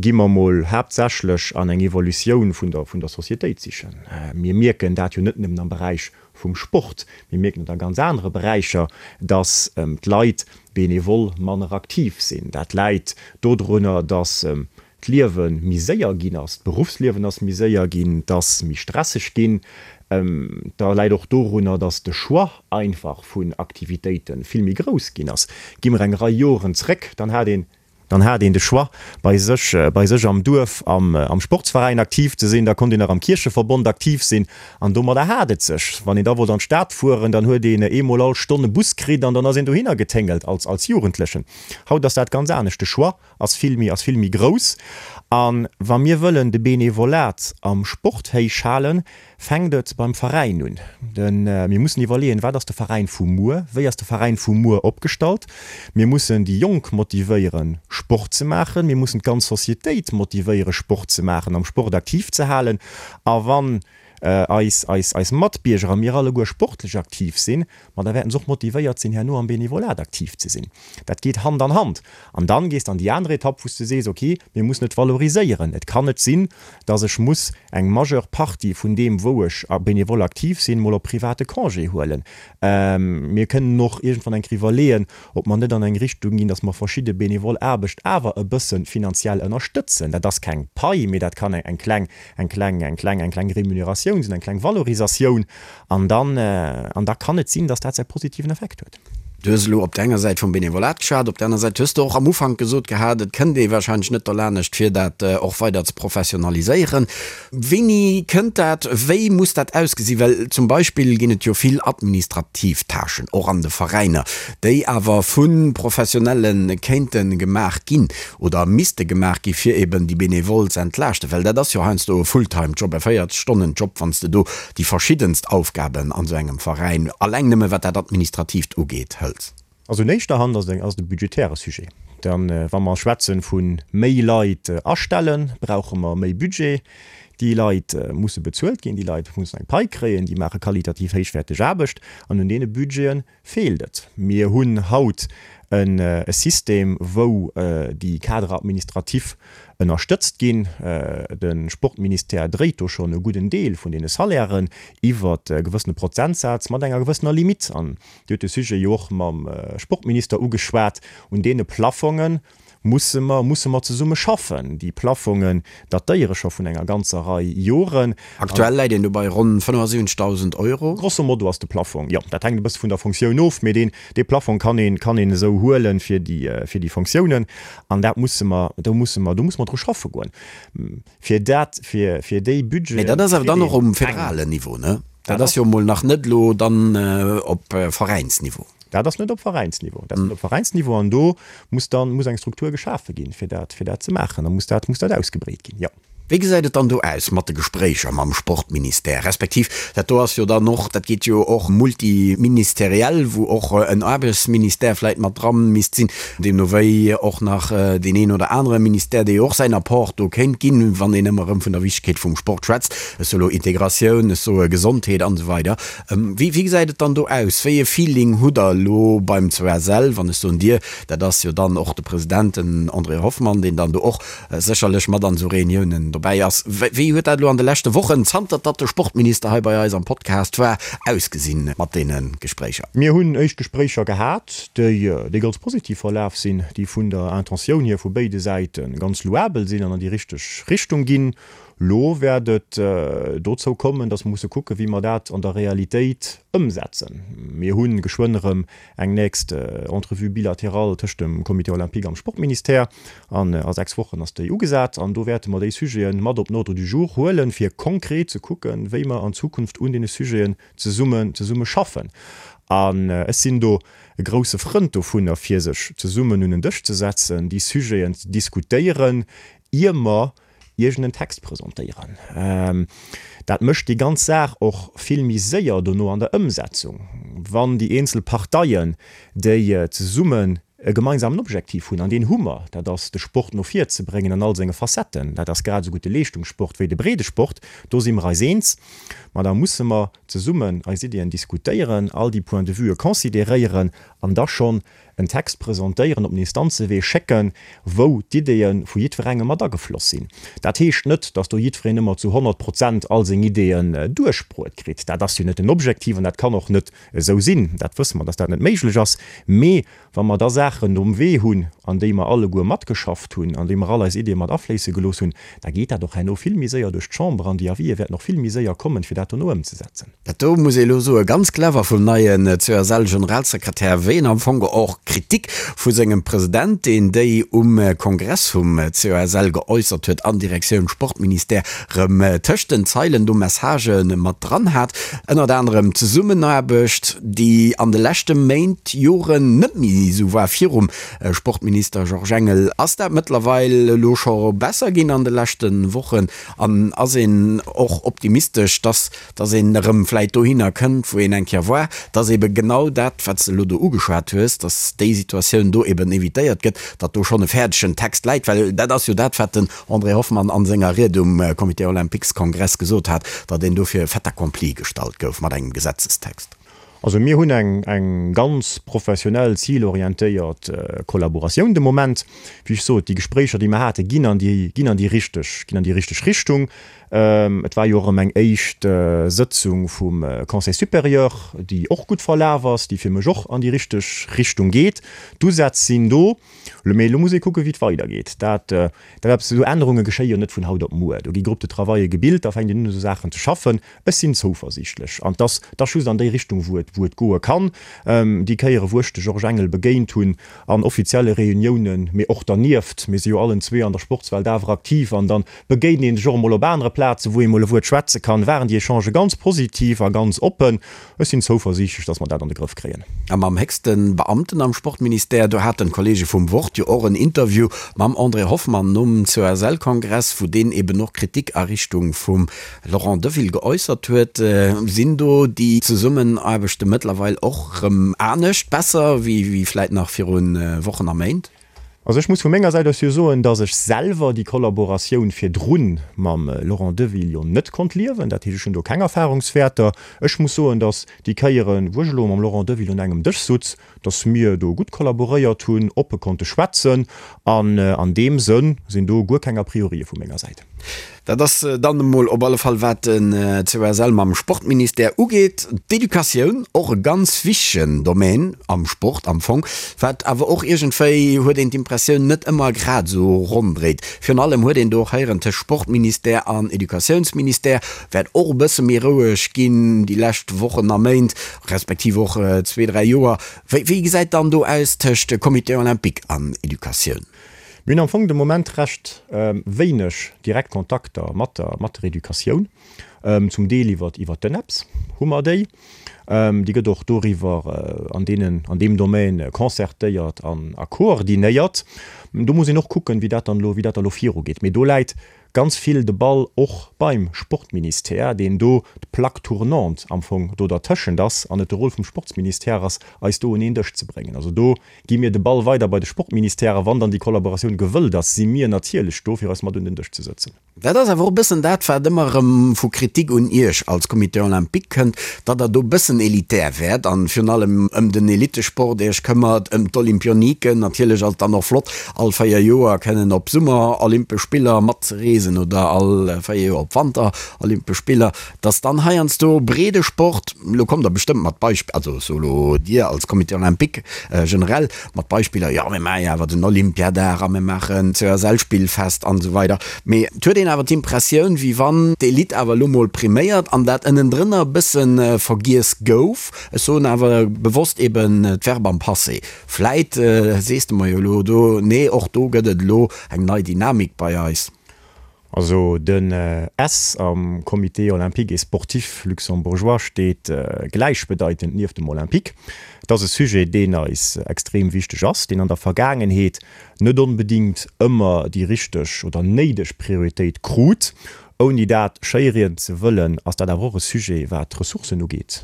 gi mer mol haaptsächlech an eng Evolutioun vun der, vun der Societéit sichen. Mir mierken dat jo net nëmmen am Beräich vum Sport, mir mierken et a ganz anere Beräicher, dass d'Leit benevol manner aktiv sinn. Dat läit dodrunner, dass d'Liewe méi séier ginn ass, d'Beruffsliewen ass méi séier ginn, et ass méi stresseg ginn. Da läit och dorunner, datt de Choix einfach vun Aktivitéite vill méi grouss ginn ass. Gi mer eng Rei Joren zréck, dann hat een, dann hat een de Choix bei sech, bei sech am Duerf am am Sportsveräin aktiv ze sinn, da konnt een nach am Kiercheverbond aktiv sinn an domadder hat et sech. Wann een da wollt an d'Stad fueren, dann huet een eemol all Stonn e Bus kritt an dann ass een dohinner geténgelt als als Jugendlechen. Haut ass dat ganz anescht, de Choix ass vill méi, ass vill méi grouss. A wa mir wëllen de Benevolat am Sport héich halen, fänkt et beim Veräin un. De mir mussen iwwerleeën, wat ass de Veräin vu muer, wéi ass de Veräin vu muer opgestallt. Mir mussen déi Jonk motivéieren, Sport ze maachen. Mir mussen d'ganz Societéit motivéieren, Sport ze maachen, am Sport aktiv ze halen. A wann. eis, eis, eis Matbierger a mir alleguer sportlech aktiv sinn, ma da wäerten se och motivéiert sinn, herno am Benevolat aktiv ze sinn. Dat geet Hand an Hand. An dann gees de an déi aner Etapp, wou s de sees, okay, mir mussen et valoriséieren. Et kann net sinn, dass ech muss eng majeure Partie vun deem, wou ech benevol aktiv sinn, mol op private Congé huelen. Mir kënnen och iergendwann eng Kéier iwwerleeën, ob mer net an eng Richtung ginn, dass mer verschidde benevol Aarbecht awer e bësse finanziell ënnerstëtzen. Dat ass keng Pai, mee dat kann eng kleng, eng kleng, eng kleng, eng kleng Remuneratioun sinn, eng kleng Valorisatioun. An dann, an da kann et sinn, dass dat säi positiven Effekt huet. Du hues elo op der enger Säit vum Benevolat geschwat, op der aner Säit hues de och am Ufank gesot gehat, et kënnt ee warscheinlech net derlanescht, fir dat och weider ze professionaliséieren. Wéini kënnt dat? Wéi muss dat ausgesinn? Well zum Beispill ginn et jo vill administrativ Tâchen, och an de Veräiner, déi awer vu Professionelle kéinte gemaach ginn oder misste gemaach gi fir eben déi Benevole ze entlaaschten. Well dat ass jo heiansdo e Fulltime-Job, e 40 Stonnen-Job, wann s de do déi verschiddenst Aufgaben an esou engem Veräin, alleng nëmme wat dat Administratiivt ugeet, hëls. Also un éischter Hand ass et ass et e budgetäre Sujet. Dann, wa mer schwätzen vu méi Leit astellen, brauche mer méi Budget. Déi Leit musse bezuelt ginn, déi Leit mussen eng Pai kréien, déi maache qualitativ héichwäerteg Aarbecht an un deene Budgete feelt et. Mir hunn haut e System, wou déi Cadres administratifs ënnerstëtzt ginn. De Sportministère dréit do schonn e gudden Deel vun deene Salairen iwwer e gewëssene Prozentsaz mat enger gewëssener Limite. An Dir hutt de Sujet jo och mam Sportminister ugeschwat. Un deene Plafonge musse mer, musse mer zesumme schaffen. Déi Plafongen datéiere scho vun enger ganzer Rei Joren. Aktuell läit een do bei ronn 75.000 Euro. Grosso modo ass de Plafong, jo, dat hänkt e bësse vun der Fonctioun of, mee deen, dee Plafong kann een, kann een esou huelen fir déi, fir déi Fonctiounen. An dat musse mer, do musse mer, do musse mer dru schaffe goen, fir dat, fir, fir déi Budgeten. Mee dat ass awer dann och um federalen Niveau, ne? Dat ass jo emol nach net elo dann op Veräinsniveau. Dat ass net op Veräinsniveau. Dat ass net op Veräinsniveau an do muss dann, muss eng Struktur geschafe ginn, fir dat, fir dat ze maachen. Da muss dat, muss dat ausgebreet ginn, jo. Wéi gesäit et dann do aus mat de Gespréicher mam Sportministère, respektiv dat do ass jo dann och, dat geet jo och multiministeriell, wou och en Aarbechtsministère vläicht mat dra misst sinn, deemno wéi och nach deen een oder anere Ministère, dee jo och säin Apport do kéint ginn, wann een ëmmer erëm vun der Wichtegkeet vum Sport schwätzt, ech soe lo Integratioun, ech soe Gesondheet an esou weider. Wéi gesäit et dann do aus? Wéi e Feeling hutt Der elo beim COSL, wann ech soen Dir, dat ass jo dann och de President, den André Hoffmann, deen dann do och sécherlech mat an esou Reuniounen dobäi ass. Wéi huet dat elo an de leschte Wochen, zanter datt de Sportminister hei bei eis am Podcast war, ausgesinn mat deene Gespréicher? Mir hunn éischt Gespréicher gehat, déi ganz positiv verlaf sinn, déi vun der Intentioun hier vu béide Säite ganz louabel sinn an an déi richteg Richtung ginn. Lo wäert et dozou kommen, datt mer musse kucken, wéi mer dat an der Realitéit ëmsetzen. Mir hu geschwënn erëm eng nächst Entrevue bilatérale tëscht dem Comité olympique am Sportministère an a 6 Wochen ass déi ugesat an do wäerte mer déi Sujete mat op den Ordre du jour huelen, fir konkret ze kucken, wéi mer an Zukunft un deene Sujeten zesummen zesumme schaffen. An ech sinn do e grousse Frënd dovunner, fir sech zesummen un en Dësch ze setzen, déi Sujeten ze diskutéieren, ier mer iergend en Text presentéieren. Dat mécht déi ganz Saach och vill méi séier dono an der Ëmsetzung, wann déi eenzel Parteien, déi zesummen e gemeinsamen Objektiv hunn, an deen hu mer, dat ass de Sport no vir ze bréngen an all senge Facetten, dat ass grad esou gutt de Leeschtungssport wéi de Breedesport, do si mer eis eens, ma da musse mer zesummen eis Iddien diskutéieren, all déi Points de vuë consideréieren an da schonn en Text presentéieren, op den Instanzewee schécken, wou d'Iddee vu jiddwerengem mat agefloss sinn. Dat heescht net, datt do jiddwereen ëmmer zu 100 Prozent all seng Ideeën duerchbruet kritt. Dat ass jo net den Objektiv an dat kann och net esou sinn. Dat wësse mer, datt dat net méiglech ass. Mee wa mer da Saachen um Wee hunn, an déi mer alleguer matgeschafft hunn, an déi mer all eis Ideeë mat afléisse gelooss hunn, da geet dat och herno vill méi séier duerch d'Chamber an déi Avisë wäerten och vill méi séier kommen, fir dat dono ëmzesetzen. Dat do muss ee elo soe ganz clever vum neien CSL-Generalsekretär, wéi en am Fong och Kritik vu sengem President, deen déi um Kongress vum CSL geäussert huet, an Direktioun Sportministère rëm tëscht den Zeilen do Messagë mat dran hat. Ënnert anerem d'Zesummenaarbecht, déi an de leschte Méint, Joren net méi esou war virum Sportminister Georges Engel. Ass dat mëttlerweil elo scho besser ginn an de leschte Wochen an ass een och optimistesch, dass dass een erëm vläit dohinner kënnt, wou een eng Kéier war, dass ebe genau dat, wat s de elo do ugeschwat. ugeschwat hues, datt déi Situatioun do eben evitéiert gëtt, datt do schonn e fäerdegen Text läit, well dat ass jo dat, wat den André Hoffmann a senger Ried um Comité olympiques-Kongress gesot hat, datt een do fir e Fait accompli gestallt gouf mat engem Gesetzestext. Also mir hunn eng eng ganz professionell, zilorientéiert Kollaboratioun de Moment. Wéi ech sot, déi Gespréicher, déi mer haten, ginn an déi ginn an déi richteg ginn an déi richteg Richtung. Et war jo och erëm eng éischt Sëtzung vum Conseil supérieur, déi och gutt verlaf ass, déi fir mech och an déi richteg Richtung geet. D'Usätz sinn do, mee elo muss ee kucken, wéi et weidergeet. Dat, dat eppes, esou Ännerunge geschéie jo net vun haut op muer. Do gi Groupes de travaille gebilt, da fänkt een un, u sou Saachen ze schaffen. Ech sinn zouversiichtlech, an 't ass, 't ass just an déi Richtung, wou et, wou et goe kann. Déi Kéiere wou ech de Georges Engel begéint hunn, an offizielle Reuniounen, mee och dernieft, mir si jo allen zwee an der Sportswelt awer aktiv, an dann begéint een sech och emol op anere Plazen, wou ee mol e Wuert schwätze kann, waren déi Echangë ganz positiv a ganz oppen. Ech sinn zouversiichtlech, dass mer dat an de Grëff kréien. A mam héchste Beamten am Sportministère, do haten d'Kollege vum Wort jo och en Interview mam André Hoffmann nom COSL-Kongress, wou deen eben och Kritik a Richtung vum Laurent Deville geäussert huet. Sinn do déi Zesummenaarbechte mëttlerweil och rëm anescht, besser wéi vläit nach viru Wochen a Méint? Also ech muss vu menger Säit aus jo soen, datt ech selwer déi Kollaboratioun virdrun mam Laurent Deville jo net konnt liewen. Dat heescht, ech hunn do keng Erfahrungswäerter. Ech muss soen, datt déi Kéieren, wou ech elo mam Laurent Deville un engem Dësch sutz, datt mir do gutt kollaboréiert hunn, oppe konnte schwätzen an an deem Sënn sinn do guer keng A priorië vu menger Säit. Dat ass dann emol op alle Fall wat den COSL mam Sportministère ugeet. D'Educatioun, och e ganz wichtegen Domaine am Sport am Fong, wat awer och iergendwéi, huet een d'Impressioun, net ëmmer grad esou ronn dréit. Virun allem huet een do och héieren, tëscht Sportministère an Educatiounsministère wäert och e bësse méi roueg ginn déi lescht Wochen a Méint, respektiv och zwee, dräi Joer. Wéi gesäit dann do aus tëscht Comité olympique an Educatioun? Mir hunn am Fong de Moment recht wéineg direkt Kontakter mat der mat der Educatioun. Zum Deel iwwer iwwer d'ENEPS hu mer déi. Déi gëtt och doriwwer an deenen an deem Domaine concertéiert an a koordinéiert. Do muss een och kucken, wéi dat dann elo wéi dat da elo virugeet. Mee do läit ganz vill de Ball och beim Sportministère, deen do d'Plaque tournante am Fong do dertëschent ass an et de Rôle vum Sportsministère ass, eis do un een Dësch ze bréngen. Also do Gi mir de Ball weider bei de Sportministère a wann dann déi Kollaboratioun gewëllt ass, si mir natierlech do, fir eis mat un den Dësch ze sëtzen. Dat ass awer och e bëssen dat, wat ëmmer erëm vu Kritik un Iech als Comité olympique kënnt, datt Der do e bëssen elitär wäert an virun allem ëm den Elittesport Iech këmmert, ëm d'Olympioniken. Natierlech ass et dann och flott, all 4 Joer kënnen op Summerolympesch Spiller matzereesen oder all 4 Joer op Wanterolympesch Spiller. Dass dann heiansdo Breedesport, elo kommt Der bestëmmt mat Beispiller, also ech soe lo Dir als Comité olympique generell, mat Beispiller, jo mir maache jo awer den Olympiadag a mir maachen d'COSL-Spillfest an esou weider, mee et huet een awer d'Impressioun, wéi wann d'Elite awer elo mol priméiert an dat ënnendrënner e bësse vergiess gouf. Ech soen awer bewosst eben d'Verb am Passé. Vläit sees de mer jo elo do, nee och do gëtt et elo eng nei Dynamik bei eis. Also den S am Comité olympique et sportif luxembourgeois steet gläichbedeitend nieft dem Olympique. Et ass e Sujet, deen eis extrem wichteg ass, deen an der Vergaangenheet net onbedingt ëmmer déi richteg oder néideg Prioritéit krut. Ouni dat schéirieden ze wëllen, ass dat awer och e Sujet, wat d'Ressourcen ugeet,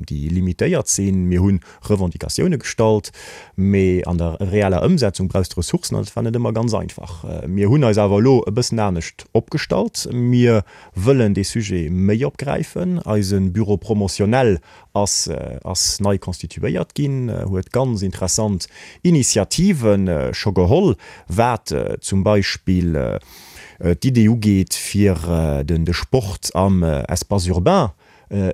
déi limitéiert sinn. Mir hunn Revendicatioune gestallt, mee an der reeller Ëmsetzung brauchs de Ressourcen an dat war net ëmmer ganz einfach. Mir hunn eis awer elo e bëssen anescht opgestallt. Mir wëllen dee Sujet méi opgräifen. Eise Bureau promotionnel ass ass nei constituéiert ginn, huet ganz interessant Initiative scho geholl, wat zum Beispill d'Idee ugeet, fir den de Sport am Espace urbain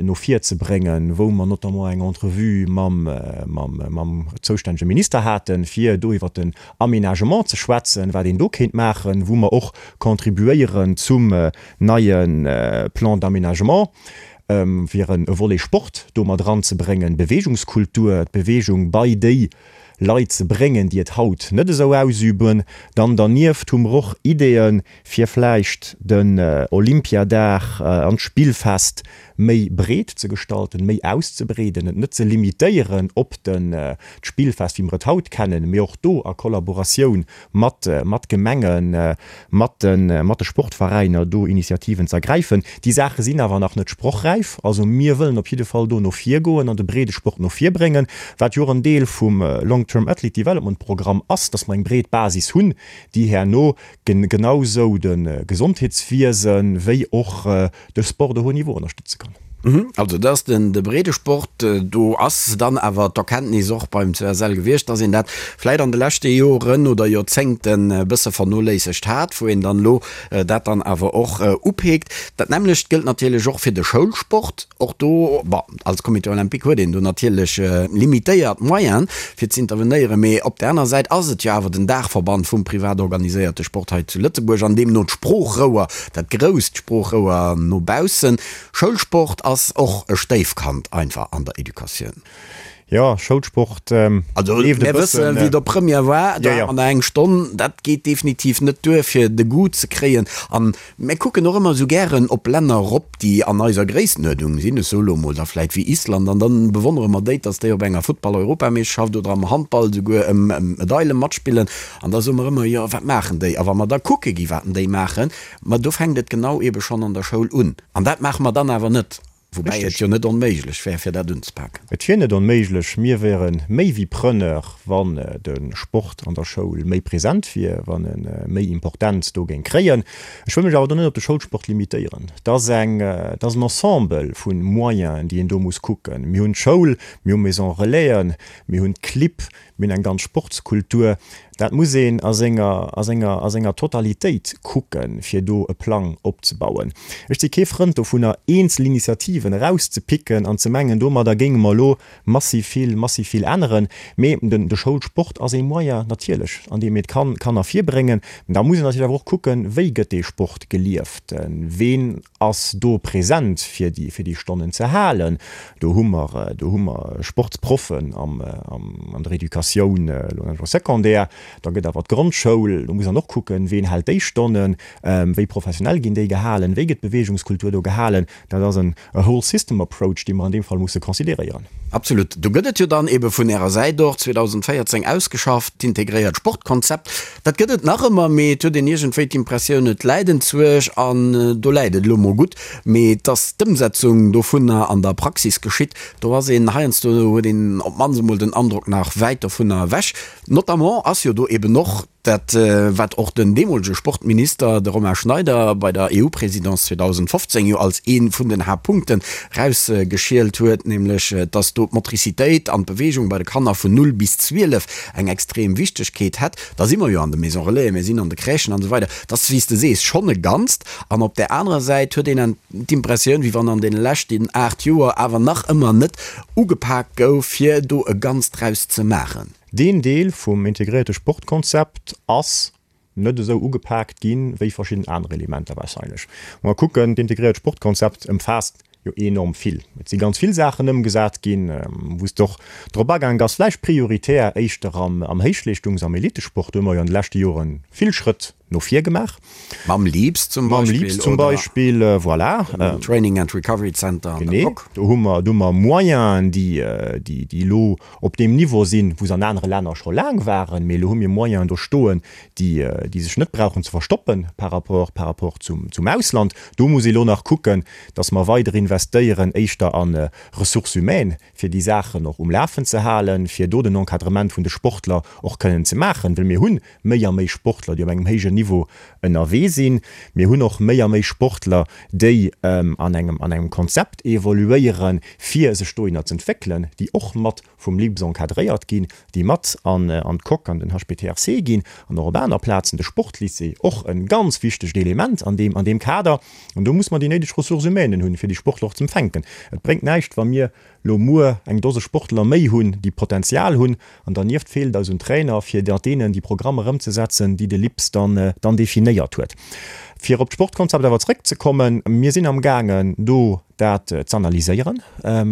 no vir ze bréngen, wou mer notamment eng Entrevue mam, mam, mam zoustännege Minister haten, fir do iwwert den Aménagement ze schwätzen, wat een do kéint maachen, wou mer och contribuéieren zum neie Plan d'aménagement, fir e Volet Sport do mat eranzebréngen, Beweegungskultur, d'Beweegung bei déi. Leit ze bréngen, déi et haut net esou ausüben. Dann dernieft hu mer och Ideeën, fir vläicht den Olympiadag an d'Spillfest méi breet ze gestalten, méi auszebreeden, et net ze limitéieren op den d'Spillfest, wéi mer et haut kennen, mee och do a Kollaboratioun mat mat Gemengen, mat de mat de Sportveräiner do Initiativen ze ergräifen. Déi Saache sinn awer nach net sprochräif. Also mir wëllen op jidde Fall do no vir goen an de Breedesport no vir bréngen, wat jo och en Deel vum Long Term Athlete Development Programm ass, dass mer eng breet Basis hunn, déi herno genau sou de Gesondheetswiese wéi och de Sport de haut niveau ënnerstëtze kann. Also dat ass den de Breedesport. Do ass dann awer d'Erkenntnis och beim CSL gewiescht, dass een dat vläit an de leschte Joren oder Joerzéngten e bësse vernoléissegt hat, wou een dann elo dat dann awer och upeekt. Dat nämmlecht gëllt natierlech och fir de Schoulsport. Och do, bon, als Comité olympique huet een do natierlech limitéiert Moyenen, fir z'intervenéieren, mee op där aner Säit ass et jo awer den Daachverband vum privat organiséierte Sport hei zu Lëtzebuerg an deemno d'Sproochrouer, dat grousst Sproochrouer no baussen. Schoulsport ass och e Stéifkand einfach an der Educatioun. Jo, Schoulsport Also leeft e mir wëssen, wéi et op Première war, do hat mer nach eng Stonn. Dat geet definitiv net duer, fir de Goût ze kréien. An mir kucken och ëmmer esou gären op Länner erop, déi an eiser Gréisstenuerdnung sinn, ech soe lo emol da vläit wéi Island, an dann bewonnere mer déi, dass déi op enger Futtball-Europameeschterschaft oder am Handball esouguer ëm Medaile matspillen. An da soe mer ëmmer, jo, wat maachen déi? A wa mer da kucke gi wat déi maachen, ma do fänkt et genau eebe schonn an der Schoul un. An dat maache mer dann awer net. Woubäi et jo net onméiglech wär, fir dat unzepaken. Et wier net onméiglech. Mir wäre méi wéi Preneur, wann de Sport an der Schoul méi present wier, wann e méi Importenz do géing kréien. Ech wëll mech awer do net op de Schoulsport limitéieren. Et ass eng, et ass en Ensemble vu Moyenen, déi een do muss kucken. Mir hunn d'Schoul, mir hu Maisons Relaisen, mir hunn d'Clibb, Mir hunn eng ganz Sportskultur. Dat muss een a senger, a senger, a senger Totalitéit kucken, fir do e Plang opzebauen. Ech si kee Frënd dovunner, eenzel Initiativen erauszepicken an ze mengen, domadder géinge mer elo massiv vill, massiv vill änneren. Mee den, de Schoulsport ass ee Moyen natierlech, an deem een d'Kan, Kanner virbréngen. Da muss een natierlech awer och kucken, Wéi gëtt dee Sport gelieft? Ween ass do present fir déi fir déi Stonnen ze halen. Do hu mer do hu mer Sportsproffen am an der Educatioun elo am Secondaire. Da gëtt awer d'Grondschoul, do muss een och kucken, ween hält déi Stonnen, wéi professionell ginn déi gehalen, wéi gëtt d'Beweegungskultur do gehalen. Dat ass en a whole system approach, dee mer an deem Fall musse consideréieren. Absolut. Do gëtt et jo dann ebe vun Ärer Säit och 2014 ausgeschafft, d'integréiert Sportkonzept. Dat gëtt et nach ëmmer, mee et huet een iergendwéi d'Impressioun, et läit enzwuesch an do läit et elo mol gutt. Mee dass d'Ëmsetzung dovunner an der Praxis geschitt, do ass een heiansdo, huet een op d'mannst emol den Androck, nach wäit dovunner ewech. Notamment ass jo do eben och Dat, wat och den deemolege Sportminister, de Romain Schneider, bei der EU-Présidence 2015 jo als ee vun den Haaptpunkten erausgeschielt huet, nämlech dass do d'Motricitéit an d'Beweegung bei de Kanner vun 0 bis 12 eng extrem Wichtegkeet hätt. Da si mer jo an de Maisons Relaisen, mir sinn an de Crèchen an esou weider. Dat ass, wéi s de sees, schonn e Ganzt. An op där anerer Säit huet een d'Impressioun, wéi wann an deene leschten 8 Joer awer nach ëmmer net ugepaakt gouf, fir do e Ganzt draus ze maachen. Deen Deel vum integréierte Sportkonzept ass net esou ugepaakt ginn, wéi verschidden aner Elementer wahrscheinlech. Wa mer kucken, d'integréiert Sportkonzept ëmfaasst jo enorm vill. Et si ganz vill Saachen ëmgesat ginn, wou s de och drop agaang bass, vläicht prioritär éischter am Héichleeschtungs-, am Elitesport. Do hu mer jo an de leschte Jore vill Schrëtt no vir gemaach. Mam LEAPS zum Beispill. Mam LEAPS zum Beispill, voilà. Dem Training and Recovery Center an der Coque. Genee, do hu mer, do hu mer Moyenen, déi, déi, déi elo op deem Niveau sinn, wou se an anere Länner scho laang waren. Mee elo hu mir Moyenen do stoen, déi, déi sech net brauchen ze verstoppen par rapport, par rapport zum, zum Ausland. Do muss ee elo nach kucken, dass mer weider investéieren, éischter a Ressources humaines, fir déi Saachen och um Lafen ze halen, fir do den Encadrement vun de Sportler och kënnen ze maachen, well mir hunn méi a méi Sportler, déi op engem héijen Niveau ënnerwee sinn. Mir hunn och méi a méi Sportler, déi an engem an engem Konzept evoluéieren, fir sech dohinner z'entwéckelen, déi och mat vum LIPS encadréiert ginn, déi mat an an d'Coque, an den HPTRC ginn an och op aner Plazen, de Sportlycée, och e ganz wichtegt Element an deem an deem Kader. An do muss mer déi néideg Ressources humaines hunn, fir déi Sportler och z'empfänken. Et bréngt näischt, wa mir lo muer eng Dose Sportler méi hunn, déi Potenzial hunn, an dernieft feelt et eis un Trainer, fir mat deenen déi Programmer ëmzesetzen, déi de LIPS dann dann definéiert huet. Fir op d'Sportkonzept awer zréckzekommen, Mir sinn amgaangen, do dat z'analyséieren.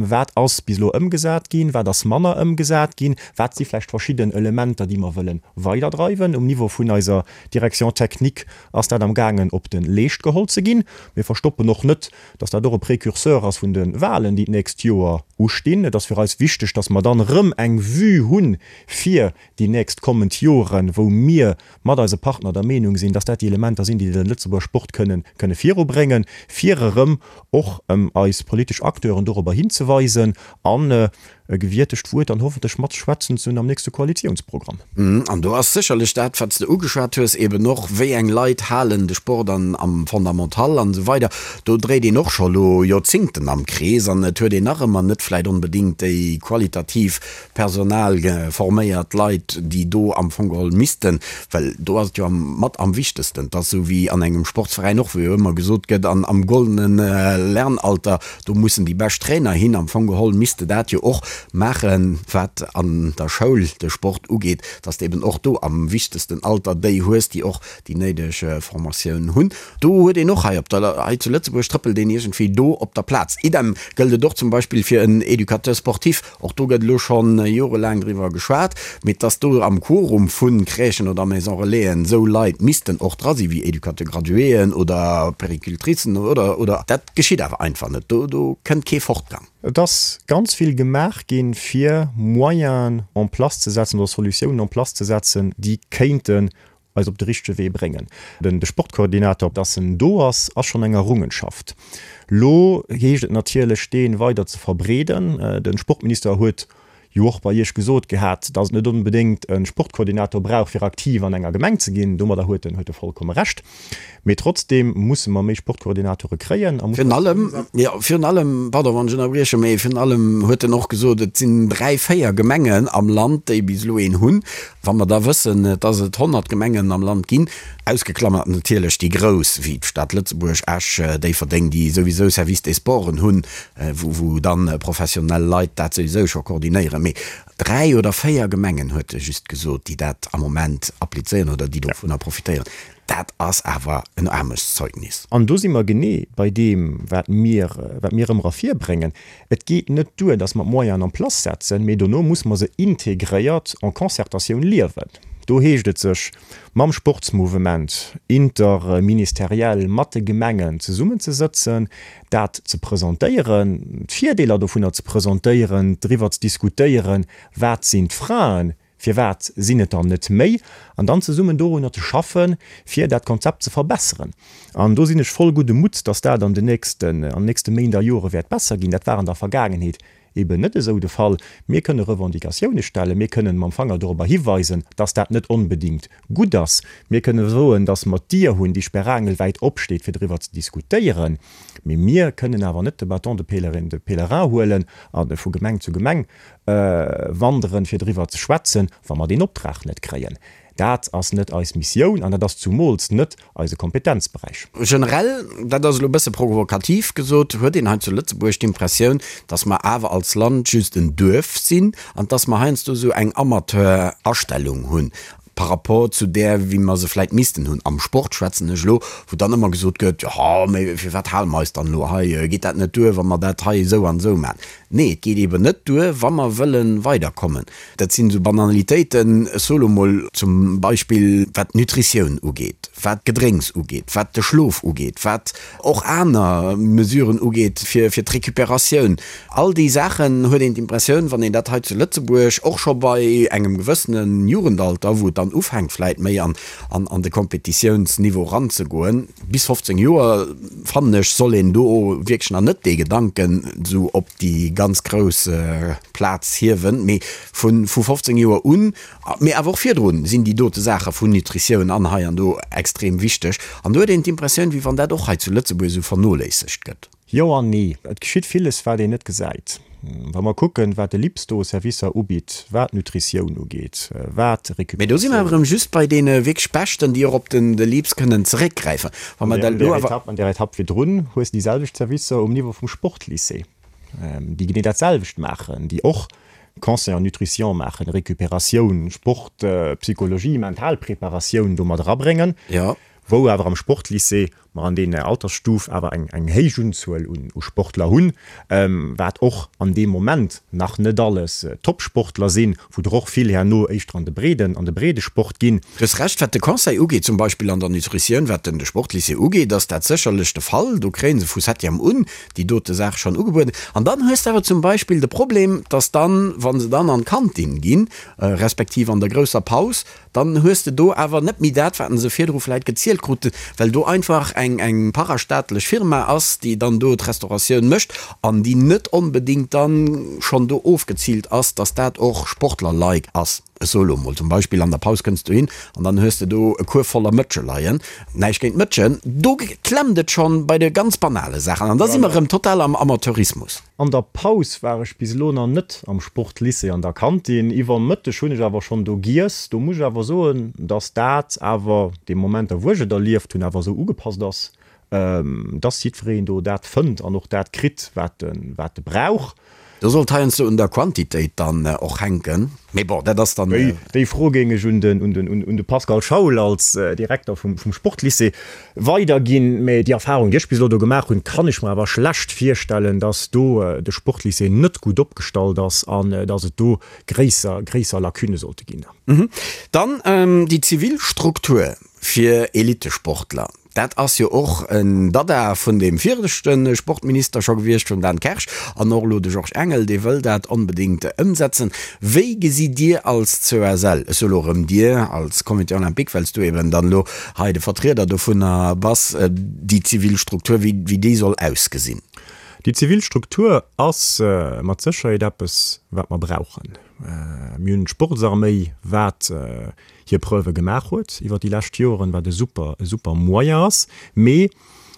Wat ass bis elo ëmgesat ginn, wat ass manner ëmgesat ginn, wat si vläicht verschidden Elementer, déi mer wëlle weiderdreiwen. Um Niveau vun eiser Direction technique ass dat amgaangen op de Leescht geholl ze ginn. Mir verstoppen och net, dass dat och e Précurseur ass vun de Wahlen, déi d'nächst Joer ustinn. Et ass fir eis wichteg, dass mer dann erëm eng Vue hunn fir déi nächst kommend Joren, wou mir mat eise Partner der Meenung sinn, dass dat déi Elementer sinn, déi de Lëtzebuerger Sport kënnen kënne virubréngen, fir erëm och eis politesch Acteuren dorobber hinzeweisen an e gewiertegt Wuert dann hoffentlech matschwätzen ze hunn am nächste Koalitiounsprogramm. An do ass sécherlech dat, wat s de ugeschwat hues, eben och, wéi eng Leit halen de Sport an am Fondamental an esou weider. Do dréit een och scho lo Joerzingten am Krees an et huet een nach ëmmer net vläicht onbedéngt déi qualitativ Personal forméiert Leit, déi do am Fong geholl missten, well do ass et jo am mat am wichtegsten, et ass esou wéi an engem Sportsveräin och, wou jo ëmmer gesot gëtt, an am goldene Lernalter, do mussen déi bescht Trainer hin. Am Fong geholl misst de dat jo och maachen, wat an der Schoul de Sport ugeet, dass de eben och do am wichtegsten Alter déi hues, déi och déi néideg Formatioun hunn. Do huet een och hei op der, hei zu Lëtzebuerg trëppelt een iergendwéi do op der Plaz. Idem gëllt et och zum Beispill fir en Éducateur sportif. Och do gëtt elo schonn jorelaang driwwer geschwat, mee dass do am Quorum vu Crèchen oder Maison Relaisen esou Leit missten och dra sinn, wéi Éducateur-graduéen oder Péricultricen oder, oder, dat geschitt awer einfach net. Do, do kënnt kee Fortgang. Et ass ganz vill gemaach ginn, fir Moyenen en place ze setzen oder Solutiounen en place ze setzen, déi kéinten eis op de richtege Wee bréngen. Den de Sportkoordinator, dass en do ass, ass schonn eng Errungenschaft. Lo heescht et natierlech, dee weider ze verbreeden. De Sportminister huet jo och bei Iech gesot gehat, dass et net onbedéngt e Sportkoordinator brauch, fir aktiv an enger Gemeng ze ginn. Domadder huet en huet e vollkomme Recht. Mee trotzdeem musse mer méi Sportkoordinatore kréien a mussen. Virun allem, jo, virun allem, pardon, wann ech ënnerbriechen, mee virun allem huet en och gesot, et sinn dräi, véier Gemengen am Land, déi bis elo een hunn. Wa mer da wëssen, dass et 100 Gemengen am Land ginn, ausgeklammert natierlech déi grouss, wéi d'Stad Lëtzebuerg, Esch, Déifferdeng, déi souwisou Service des Sporten hunn, wou dann professionell Leit dat souwisou scho koordinéieren, mee dräi oder véier Gemengen, huet e just gesot, déi dat am Moment applizéieren oder déi dovunner profitéieren. Dat ass awer en Aarmutszeugnis. An do si mer genee bei deem, wat mir, wat mir ëmmer ervirbréngen, Et geet net duer, dass mer d'Moyenen en place setzen, mee dono muss mer se integréiert en Concertatioun liewen. Do heescht et sech mam Sportsmouvement interministeriell mat de Gemengen zesummenzesëtzen, dat ze presentéieren, d'Virdeeler dovunner ze presentéieren, driwwer ze diskutéieren, wat sinn d'Fraen, Firwat sinn et der net méi? An dann zesummen dorunner ze schaffen, fir dat Konzept ze verbesseren. An do sinn ech voll gudde Mutts, dass dat an den nächsten, an den nächste Méint a Jore wäert besser ginn. Dat war an der Vergaangenheet eben net esou de Fall. Mir kënne Revendicatioune stellen, mir kënnen mam Fanger dorobber hiweisen, dass dat net onbedéngt gutt ass. Mir kënne soen, dass mer d'Dier hunn, déi sperrangelwäit opsteet, fir driwwer ze diskutéieren. Mee mir kënnen awer net de Bâton de pèlerin, de pèlerin huelen a vu Gemeng zu Gemeng wanderen, fir driwwer ze schwätzen, wa mer deen Optrag net kréien. Dat ass net eis Missioun an dat ass zumools net eise Kompetenzberäich. Generell, dat ass elo e bësse provokativ gesot, huet een hei zu Lëtzebuerg d'Impressioun, dass mer awer als Land just en Duerf sinn an dass mer heiansdo esou eng Amateur-Astellung hunn par rapport zu där, wéi mer se vläicht missten hunn. Am Sport schwätzen ech elo, wou dann ëmmer gesot gëtt, jo, mee firwat hale mer eis dann elo hei, geet dat net duer, wa mer dat hei esou an esou maachen? Nee, et geet eeben net duer, wa mer wëlle weiderkommen. Dat sinn esou Banalitéiten, ech soe lo mol zum Beispill, wat d'Nutritioun ugeet, wat d'Gedrénks ugeet, wat de Schlof ugeet, wat och aner Mesuren ugeet fir d'Recuperatioun. All déi Saachen huet een d'Impressioun, wann een dat hei zu Lëtzebuerg och scho bei engem gewëssene Jugendalter, wou et dann ufänkt vläit méi an an de Kompetitiounsniveau eranzegoen, bis 15 Joer, fannen ech, soll een do wierklech nach net dee Gedanken esou op déi ganz grouss Plaz hiewen, mee vu 15 Joer un, mee awer och virdrun, sinn déi dote Saache vun Nutritioun an hei an do extrem wichteg. An do huet een d'Impressioun, wéi wann dat och hei zu Lëtzebuerg esou vernoléissegt gëtt. Jo an nee. Et geschitt villes, wat een net gesäit. Wa mer kucken, wat de LIPS do u Servicer ubitt, wat d'Nutritioun ugeet, wat Mee do si mer awer erëm just bei deene wierklech Beschten, déi och op den de LIPS kënnen zeréckgräifen. Wa mer dat elo awer. An där Etapp virdrun hues de déi selwecht Servicer um Niveau vum Sportlycée, déi genee dat selwecht maachen, déi och Conseil en nutrition maachen, Récupératioun, Sport, Psychologie, Mentalpreparatioun do mat erabréngen. Jo. Wou awer am Sportlycée mer an deene Altersstuf awer eng eng héich Unzuel un u Sportler hunn, wat och an deem Moment nach net alles Topsportler sinn, wou der och vill herno éischter an de breeden an de breede Sport ginn. Du hues Recht, wat de Conseil ugeet, zum Beispill an der Nutritioun, wat den de Sportlycée ugeet, ass dat sécherlech de Fall. Do kréie se vu Septième un déi dote Saach schonn ugebueden. An dann hues de awer zum Beispill de Problem, dass dann, wa se dann an d'Kantin ginn, respektiv an der grousser Paus, Dann hues de do awer net méi dat, wat se virdru vläit gezielt kruten, well do einfach eng eng parastaatlech Firma ass, déi dann do d'Restauratioun mécht an déi net onbedéngt dann schonn do ofgeziilt ass, dass dat och Sportler-like ass. Ech soe lo mol zum Beispill, an der Paus kënns du hin an dann hues de do e Kuerf voller Mëtsche leien. Näischt géint d'Mëtschen, do klemmt et schonn bei de ganz banale Saachen an da si mer erëm total am Amateurismus. An der Paus war ech bis elo nach net am Sportlycée an der Kantin. Iwwer Mëtteg hunn ech awer schonn do giess. Do muss ech awer soen, dass dat awer, dee Momenter wou ech et erlieft hunn, awer esou ugepasst ass, dass jiddwereen do dat fënnt an och dat kritt, wat e wat e brauch. Do sollt heiansdo un der Quantitéit dann och hänken. Mee bon, dat ass dann. Déi Fro géing ech un de Pascal Schaul als Direkter vum Sportlycée weiderginn. Mee déi Erfahrung, déi ech bis elo do gemaach hunn, kann ech mer awer schlecht virstellen, dass do de Sportlycée net gutt opgestallt ass an dass et do gréisser, gréisser Lacunne sollte ginn. Dann déi zivil Struktur fir Elittesportler. Dat ass jo och en Dada vun deem viregte Sportminister scho gewiescht, vum Dan Kersch, an och elo de Georges Engel, dee wëll dat onbedéngt ëmsetzen. Wéi gesitt Dir als COSL, ech soe elo erëm Dir als Comité olympique, well s du eben dann elo hei de Vertrieder dovunner bass, déi zivil Struktur, wéi déi soll ausgesinn? Déi zivil Struktur ass mat Sécherheet eppes, wat mer brauchen. Mir hunn d'Sportsarméi, wat hir Preuve gemaach huet iwwer déi lescht Joren, wat e super, e super Moyen ass, mee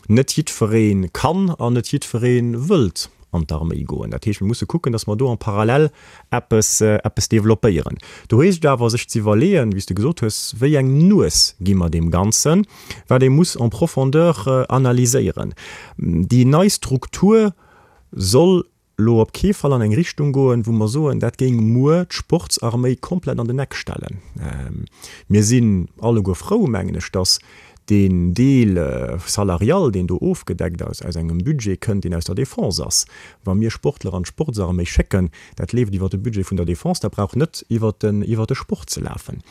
net jiddweree kann an net jiddweree wëllt an d'Arméi goen. Dat heescht, mir musse kucken, datt mer do en parallèle eppes, eppes développéieren. Do heescht et awer, sech ze iwwerleeën, wéi s de gesot hues, wéi eng Nues gi mer deem Ganzen, wat ee muss en profondeur analyséieren. Déi nei Struktur soll elo op kee Fall an eng Richtung goen, wou mer soen, dat géing muer d'Sportsarméi komplett an den Eck stellen. Mir sinn alleguer frou, mengen ech, dass deen Deel salarial, deen do ofgedeckt ass, aus engem Budget kënnt, deen aus der Défense ass. Wa mir Sportler an d'Sportsarméi schécken, dat leeft iwwer de Budget vun der Défense, dat brauch net iwwer de Sport ze lafen.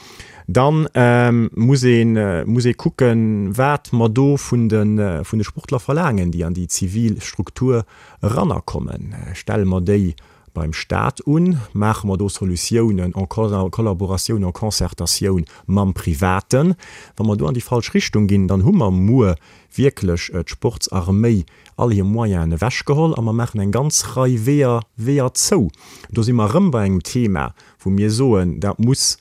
Da muss ee muss ee kucken, wat mer do vun de Sportler verlaangen, déi an déi zivil Struktur Erannerkommen. Stelle mer déi beim Stat un? Maache mer do Solutiounen en collaboratioun, en concertatioun mam Privaten? Wa mer do an déi falsch Richtung ginn, dann hu mer muer wierklech d'Sportsarméi all hir Moyenen ewechgeholl a mer maachen eng ganz Rei Weeër, Weeër zou. Do si mer erëm bei engem Thema, wou mir soen, dat muss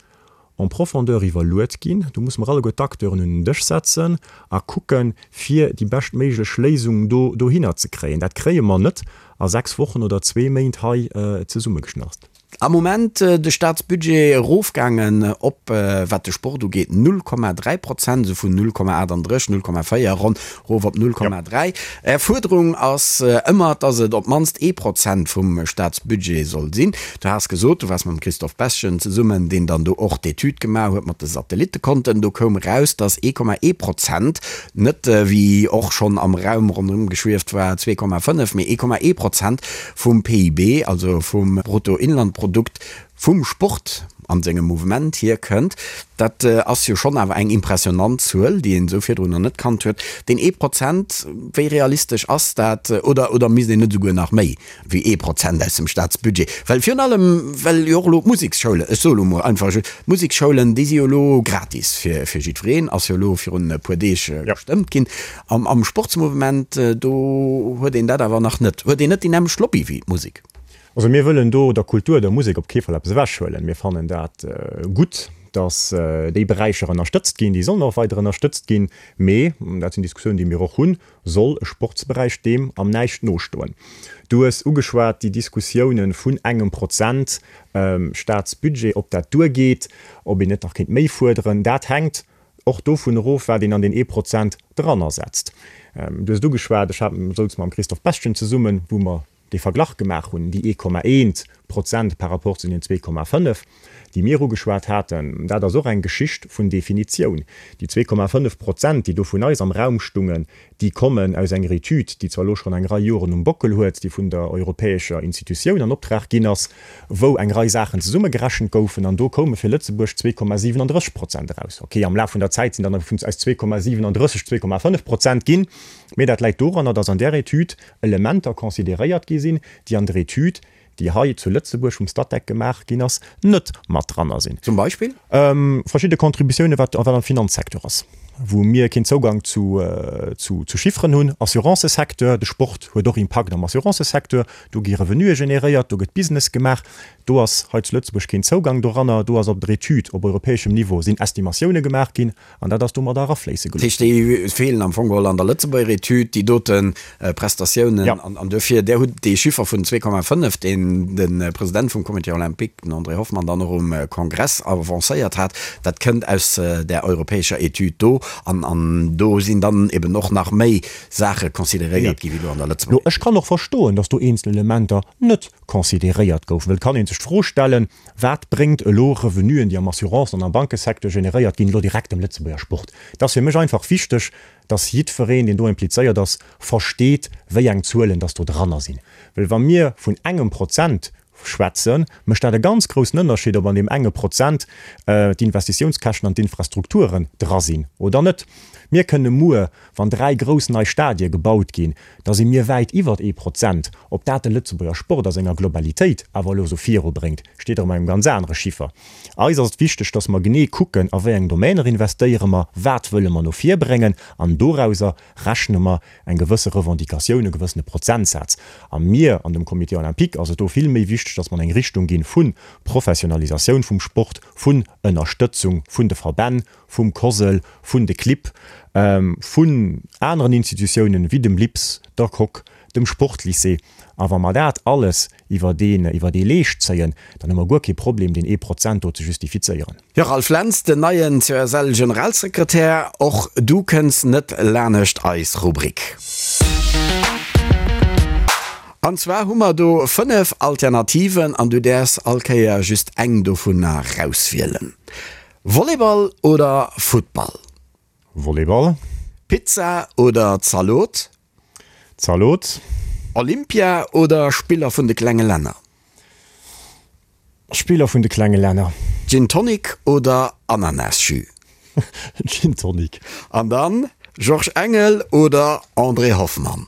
en profondeur iwwerluet ginn. Do musse mer alleguer d'Acteuren un den Dësch setzen a kucken, fir déi beschtméiglech Léisung do dohinner ze kréien. Dat kréie mer net a 6 Wochen oder zwee Méint hei zesummegeschnarst. Am Moment de Staatsbudget erofgaangen op, wat de Sport ugeet, 0,3 Prozent, esou vun 0,38, 0,4 ronn erof op 0,3. Är Fuerderung ass ëmmer, dass et op d'mannst ee Prozent vum Staatsbudget soll sinn. Du has gesot, du waars mam Christophe Beschen zesummen, deen dann do och d'Etüd gemaach huet mat de Satellittekonten. Do koum eraus, dass 1,1 Prozent, net wéi och schonn am Raum ronderëm geschwieft war, 2,5, mee 1,1 Prozent vum PIB, also vum Bruttoinlandprodukt, vum Sport an sengem Mouvement hierkënnt, dat ass jo schonn awer eng impressionant Zuel, déi een esou virdrun nach net kannt huet. Deen ee Prozent, wéi realistesch ass dat? Oder, oder misst een net esouguer nach méi wéi ee Prozent aus dem Staatsbudget? Well virun allem, well jo och elo d'Museksschoulen, ech soe lo mol einfach, d'Museksschoulen, déi si jo elo gratis fir, fir jiddwereen, ass jo elo virun e puer Deeg gestëmmt ginn. Am, am Sportsmouvement, do huet een dat awer nach net, huet een net déi nämmlecht Lobby wéi d'Musek. Also mir wëllen do der Kultur, der Musek op kee Fall eppes ewechhuelen. Mir fannen dat gutt, datt déi Beräicher ënnerstëtzt ginn. Déi sollen och weider ënnerstëtzt ginn. Mee, dat sinn Diskussiounen, déi mir och hunn, soll e Sportsberäich deem am näischt nostoen? Du hues ugeschwat déi Diskussiounen vun engem Prozent Staatsbudget, ob dat duergeet, ob een net nach kéint méi fuerderen. Dat hänkt och dovun erof, wat een an deen ee Prozent drannersetzt. Du hues et ugeschwat, ech hat, souz mam Christophe Bestgen zesummen, wou mer dee Verglach gemaach hunn, déi 1,1. Prozent par rapport zu den 2,5, déi mir ugeschwat haten. Dat ass och eng Geschicht vun Definitioun. Déi 2,5 Prozent, déi do vun eis am Raum stungen, déi kommen aus enger Etüd, déi zwar elo schonn eng Rei Joren um Bockel huet, déi vun der europäescher Institutioun an Optrag ginn ass, wou eng Rei Saachen zesummegerechent goufen, an do koume fir Lëtzebuerg 2,37 Prozent eraus. Okay, am Laf vun der Zäit sinn dann aus 2,37 2,5 Prozent ginn, mee dat läit doranner, dass an där Etüd Elementer consideréiert gi sinn, déi an der Etüd, déi hei zu Lëtzebuerg vum Statec gemaach ginn ass, net mat dranner sinn. Zum Beispill? Verschidde Contributiounen, wat am Finanzsecteur ass, wou mir keen Zougang zu Chifferen hunn. Assurancesecteur, de Sport huet och Impakt am Assurancesecteur, do gi Revenuë generéiert, do gëtt Business gemaach. Do ass hei zu Lëtzebuerg keen Zougang doranner. Do ass op der Etüd op europäeschem Niveau sinn Estimatioune gemaach ginn an dat ass domadder erafléisse gelooss. Dat heescht, déi feelen am Fong geholl an der Lëtzebuerger Etüd, déi dote Prestatiounen. An duerfir, Där hutt dee Chiffer vun 2,5, deen de President vum Comité olympique, den André Hoffmann, dann och um Kongress avancéiert hat, dat kënnt aus där europäescher Etüd do. An do sinn dann eben och nach méi Saache consideréiert gi wéi elo an der Lëtzebuerger Etüd. Ech kann och verstoen, datt do eenzel Elementer net consideréiert goufen, well et kann ee sech d'Fro stellen, Wat bréngt elo Revenuen, déi am Assurance an am Bankesecteur generéiert ginn, elo direkt dem Lëtzebuerger Sport? Et ass fir mech einfach wichteg, dass jiddwereen, deen do implizéiert ass, versteet, wéi eng Zuelen dass do dranner sinn. Well wa mir vun engem Prozent schwätzen, mécht dat e ganz groussen Ënnerscheed, ob an deem enge Prozent d'Investitiounskäschten an d'Infrastrukturen dra sinn oder net. Mir kënne muer, wann 3 grouss nei Stadie gebaut ginn, da si mir wäit iwwert ee Prozent. Ob dat de Lëtzebuerger Sport a senger Globalitéit awer elo esou virubréngt, steet erëm engem ganz anere Chiffer. Eis ass et wichteg, dass mer genee kucken, a wéi eng Domainer investéiere mer, wat wëlle mer no vir bréngen, an dorauser rechne mer eng gewësse Revendicatioun, e gewëssene Prozentsaz. A mir an dem Comité olympique ass et do vill méi wichteg, dass mer an eng Richtung ginn vu Professionalisatioun vum Sport, vun Ënnerstëtzung vun de Verbänn, vum COSL, vun de Clibb, vun aneren Institutiounen wéi dem LIPS, der Coque, dem Sportlycée. A wa mer dat alles iwwer deen, iwwer dee Leescht zéien, dann hu mer guer kee Problem, deen ee Prozent do ze justifizéieren. Jo, Ralph Lentz, den neien COSL-Generalsekretär, och du kënns net lanescht eis Rubrik. An zwar hu mer do 5 Alternativen an du däerfs all Kéier just eng dovunner rauswielen. Volleyball oder Futtball? Volleyball. Pizza oder Zalot? Zalot. Olympia oder Spiller vun de klenge Länner? Spiller vun de klenge Länner. Gin Tonic oder Ananasjus? Gin Tonic. An dann Georges Engel oder André Hoffmann?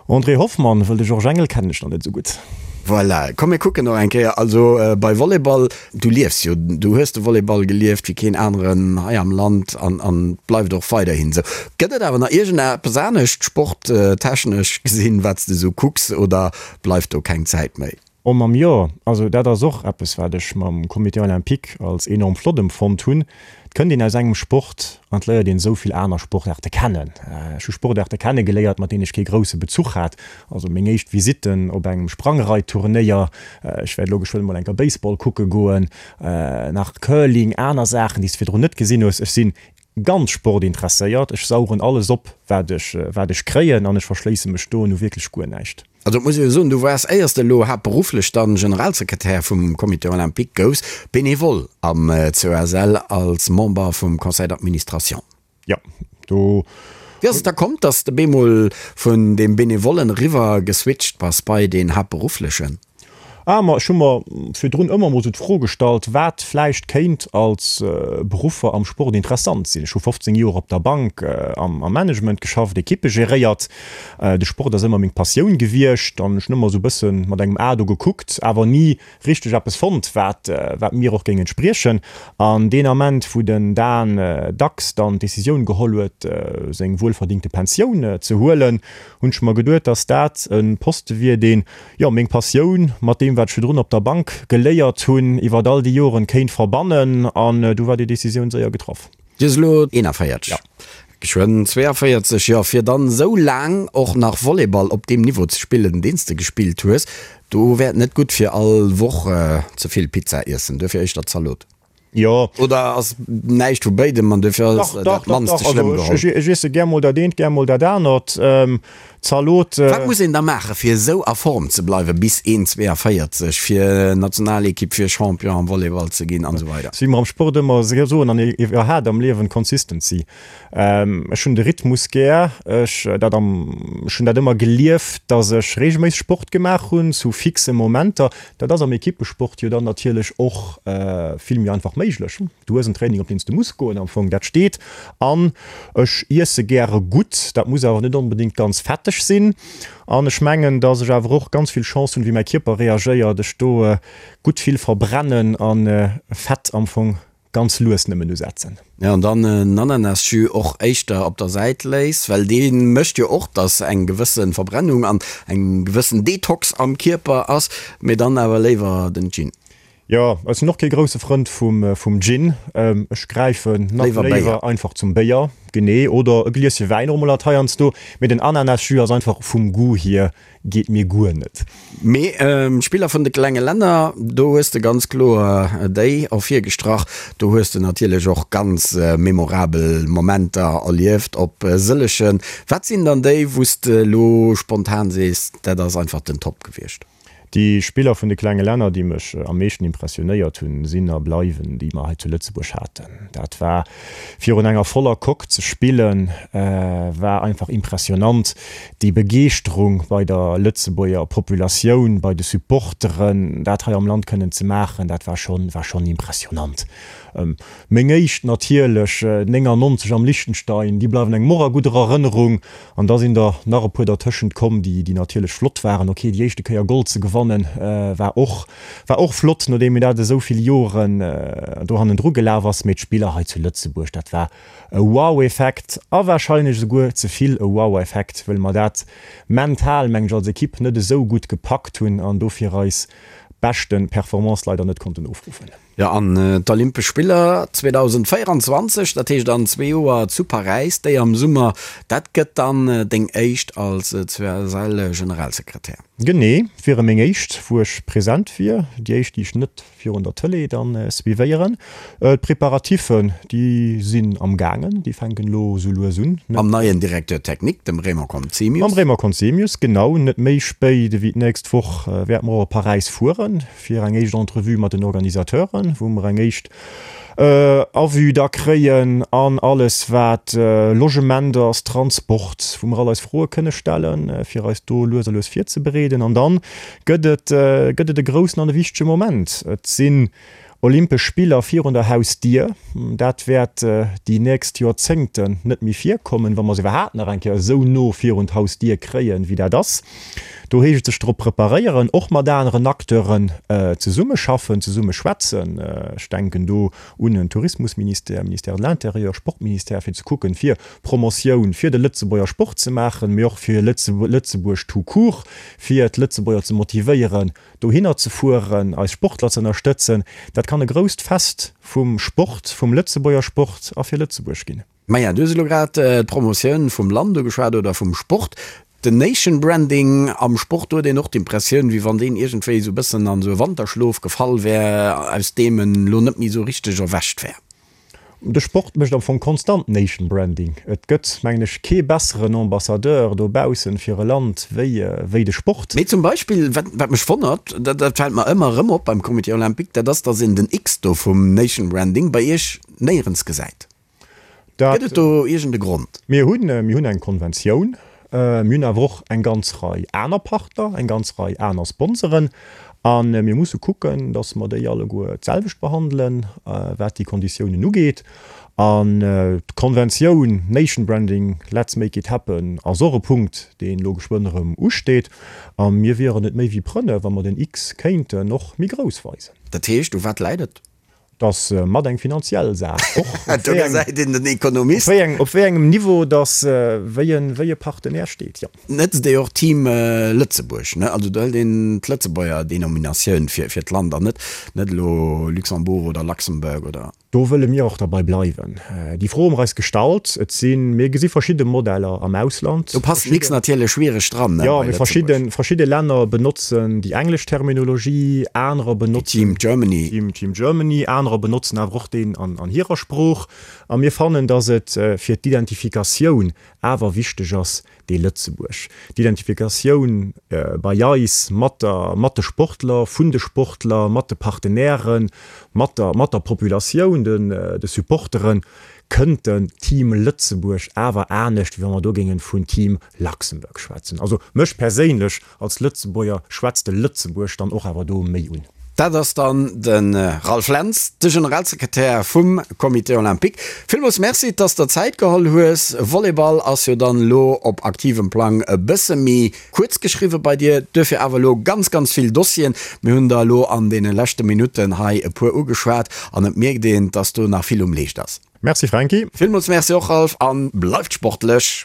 André Hoffmann, Wëll de Georges Engel kennen ech nach net esou gutt. Voilà, komm mir kucken och eng Kéier, also bei Volleyball, du liefs jo, du hues de Volleyball gelieft wéi keen aneren hei am Land an an bleift och weiderhin esou. Gëtt et awer nach iergendeppes anescht sporttechnesch gesinn, wat s de esou kucks oder bleift do keng Zäit méi? Oh mam jo, also dat ass och eppes wat ech mam Comité Olympique als enorm flott emfonnt hunn. Et kënnt een aus engem Sport an et léiert een esou vill aner Sportaarte kennen. Ech hu Sportaarte kennegeléiert mat deenen ech kee grousse Bezuch hat. Also meng éischt Visitten op engem Sprangreitturnéier, ech wäert elo geschwënn mol eng Kéier Baseball kucke goen, nach Curling, aner Saachen déi s de virdrun net gesinn hues. Ech sinn ganz sportinteresséiert, ech saugen alles op wat ech wat ech kréien an ech verschléisse mech do nu wierklech guer näischt. Also et muss ee jo soen, du waars, éiers de elo haaptberufflech dann Generalsekretär vum Comité olympique gouss, bénévole am COSL als Member vum Conseil d'administration. Jo, do. Wéi ass et da komm, dass de bemol vun deem Bénévollen eriwwer geswitcht bass bei deen haaptberufflechen? Ah, ma ech hu mer virdrun ëmmer mol sou d'Fro gestallt, wat vläicht kéint als Beruffer am Sport interessant sinn. Ech hu 15 Joer op der Bank am Management geschafft, Ekippe geréiert. De Sport ass ëmmer meng Passioun gewiescht an ech hunn ëmmer sou e bësse mat engem A do gekuckt, awer ni richteg eppes fonnt, wat wat mir och géing entspriechen. An deen Ament, wou den Dan Dax dann d'Decisioun geholl huet, seng wuelverdingte Pensioun ze huelen, hunn ech mer geduet, dass dat e Poste wier, deen jo, meng Passioun mat deem, wat ech virdrun op der Bank geléiert hunn, iwwert all déi Joren kéint verbannen. An du war déi Decisioun séier getraff. Du hues elo 41, jo, geschwënn 42, jo, fir dann esou laang och nach Volleyball op deem Niveau ze spillen, deen s de gespillt hues, do wär et net gutt fir all Woch ze vill Pizza iessen, duerfir éischter Zalot. Jo. Oder ass näischt vu béidem an duerfir ass dat mannste schlëmm geholl? Ech iesse gär mol dat eent, gär mol dat anert. Zalot. Wat muss een da maachen, fir esou a Form ze bleiwen bis 1,42, fir Nationalekipp, fir Champion am Volleyball ze ginn an esou weider? Wéi mer am Sport ëmmer soen an iwwerhaapt am Liewen, Consistency. Ech hunn de Rhythmus gär. Ech dat am, ech hunn dat ëmmer gelieft, datt ech reegelméisseg Sport gemaach hunn zu fixe Momenter. Dat ass am Ekippesport jo dann natierlech och vill méi einfach méiglech. Du hues en Training, op deen s de muss goen am Fong, dat steet. An ech iesse gäre gutt, dat muss awer net onbedéngt ganz fetteg sinn. An ech mengen, datt ech awer och ganz vill Chance hunn, wéi mäi Kierper reagéiert, ech do gutt vill verbrennen a Fett am Fong ganz lues nëmmen usetzen. Jo, an dann en Ananasjus och éischter op der Säit léiss, well dee mécht jo och, dass eng gewësse Verbrennung an eng gewëssen Detox am Kierper ass, mee dann awer léiwer den Gin. Jo, ech sinn och kee grousse Frënd vum Gin. Ech gräifen nach léiwer einfach zum Béier, genee, oder e Glieschen Wäin och mol alt heiansdo, mee den Ananasjus ass einfach vum Goût hier Geet mir guer net. Mee d'Spiller vun de klenge Länner, do hues de ganz kloer déi ervirgestrach. Do hues de natierlech och ganz memorabel Momenter erlieft op sëllegen. Wat sinn dann déi, wou s de elo spontan sees, dat ass einfach den Top gewiescht? Déi Spiller vun de klenge Länner, déi mech am meeschten impressionéiert hunn, sinn a bleiwen déi mer hei zu Lëtzebuerg haten. Dat war virun enger voller Coque ze spillen, war einfach impressionant. Déi Begeeschterung bei der Lëtzebuerger Populatioun, bei de Supporteren, dat hei am Land kënnen ze maachen, dat war schonn, war schonn impressionant. Meng éischt natierlech, 99 am Liechtenstein, déi bleiwen engem och a gudder Erënnerung. An da sinn der nach e puer dertëschent komm, déi, déi natierlech flott waren. Ok, déi éischte Kéier Gold ze gewannen, war och, war och flott, nodeem een dat esou vill Joren do hannendru gelaf ass. Mee d'Spiller hei zu Lëtzebuerg, dat war E Wow-Effekt, a warscheinlech esouguer ze vill e Wow-Effekt, wëll mer dat mental, mengen ech, als Ekipp net esou gutt gepackt hunn an dofir eis beschte Performance leider net konnten ofruffen. Jo, an d'Olympesch Spiller 2024, dat heescht an zwee Joer zu Paräis, déi am Summer, dat gëtt dann deng éischt als CSL-Generalsekretär? Genee, wiere meng éischt, wou ech present wier, déi éischt, déi ech net virun der Tëlee dann suivéieren. D'Preparatiffen, déi sinn am gaangen, déi fänken elo esou lues un. Mam neien Directeur technique, dem Raymond Conzemius. Mam Raymond Conzemius, genau. Net méi spéit ewéi d'nächst Woch wäerte mer och op Paräis fueren, fir eng éischt Entrevue mat den Organisateuren, wou mer eng éischt Avis da kréien an alles wat Logement ass, Transport, wou mer all eis Froe kënne stellen, fir eis do lues a lues virzebereeden. An dann gëtt et gëtt et e groussen an e wichtege Moment. Et sinn Olympesch Spiller virun der Hausdier. Dat wäert déi nächst Joerzéngten net méi virkommen, wa mer se iwwerhaapt nach eng Kéier esou no virun d'Hausdier kréien, wéi dat ass. Do heescht et sech drop preparéieren, och mat aneren Acteuren zesummeschaffen, zesummeschwätzen. Ech denken do un en Tourismusministère, Ministère de l'Intérieur, Sportministère, fir ze kucken, fir Promotioun fir de Lëtzebuerger Sport ze maachen, mee och fir Lëtzebuerg tout court, fir d'Lëtzebuerger ze motivéieren, dohinner ze fueren, eis Sportler ze ënnerstëtzen. Dat kann e grousst Fest vum Sport, vum Lëtzebuerger Sport a fir Lëtzebuerg ginn. Maja, du hues elo grad d'Promotioun vum Land ugeschwat oder vum Sport. Den Nation Branding am Sport, do huet een och d'Impressioun, wéi wann deen iergendwéi esou e bëssen an esou e Wanterschlof gefall wär, aus deem en elo net méi esou richteg erwächt wär. De Sport mécht am Fong konstant Nation Branding. Et gëtt, mengen ech, kee besseren Ambassadeur dobaussen fir e Land wéi wéi de Sport. Mee zum Beispill, wat wat mech wonnert, dat dat fält mer ëmmer erëm op beim Comité Olympique, dat ass, datt een den X do vum Nation Branding bei Iech néierens gesäit. Dat. Gëtt et do iergend e Grond? Mir hunn, mir hunn eng Konventioun. Mir hunn awer och eng ganz Rei aner Partner, eng ganz Rei aner Sponsoren. A mir musse kucken, datt mer déi alleguer d'selwecht behandelen, wat déi Konditiounen ugeet. An d'Konventioun Nation Branding, Let's make it happen ass och e Punkt, deen elo geschwënn erëm usteet. A mir wieren et méi wéi prënne, wa mer den X kéinten och méi grouss weisen. Dat heescht, u wat läit et? Et ass mat eng finanziell Saach och. Do gesäit een den Ekonomist. Op wéi engem Niveau dass wéi e Partenaire steet, jo. Net déi och Team Lëtzebuerg, ne? Also do hëlt een d'Lëtzebuerger Denominatioun fir d'Land an net net elo Luxembourg oder Luxembourg oder. Do wëlle mir och derbei bleiwen. Déi Fro hu mer eis gestallt. Et sinn, mir gesi verschidde Modeller am Ausland. Do passt den X natierlech schwiereg dran, ne? Jo, mee verschidde, verschidde Länner benotzen déi englesch Terminologie, anerer benotzen. Team Germany. Team, Team Germany, anerer. Anerer benotzen awer och deen an hirer Sprooch. A mir fannen, datt et fir d'Identifikatioun awer wichteg ass, dee Lëtzebuerg, d'Identifikatioun bei eis mat der, mat de Sportler, vun de Sportler, mat de Partenairen, mat der, mat der Populatioun, den, de Supporteren, kënnt den Team Lëtzebuerg awer anescht, wéi wa mer do géingen vun Team Luxembourg schwätzen. Also mech perséinlech Als Lëtzebuerger schwätzt de Lëtzebuerg dann och awer do méi un. Dat ass dann de Ralph Lentz, de Generalsekretär vum Comité Olympique. Villmools Merci, dass der Zäit geholl hues. Volleyball ass jo dann elo op aktivem Plang e bësse méi kuerz geschriwwe bei dir, duerfir awer elo ganz, ganz vill Dossieren. Mir hunn der elo an deene leschte Minutten hei e puer ugeschwat an et mierkt een, dass do nach vill um Leescht ass. Merci Franky. Villmools Merci och Ralph a bleift sportlech.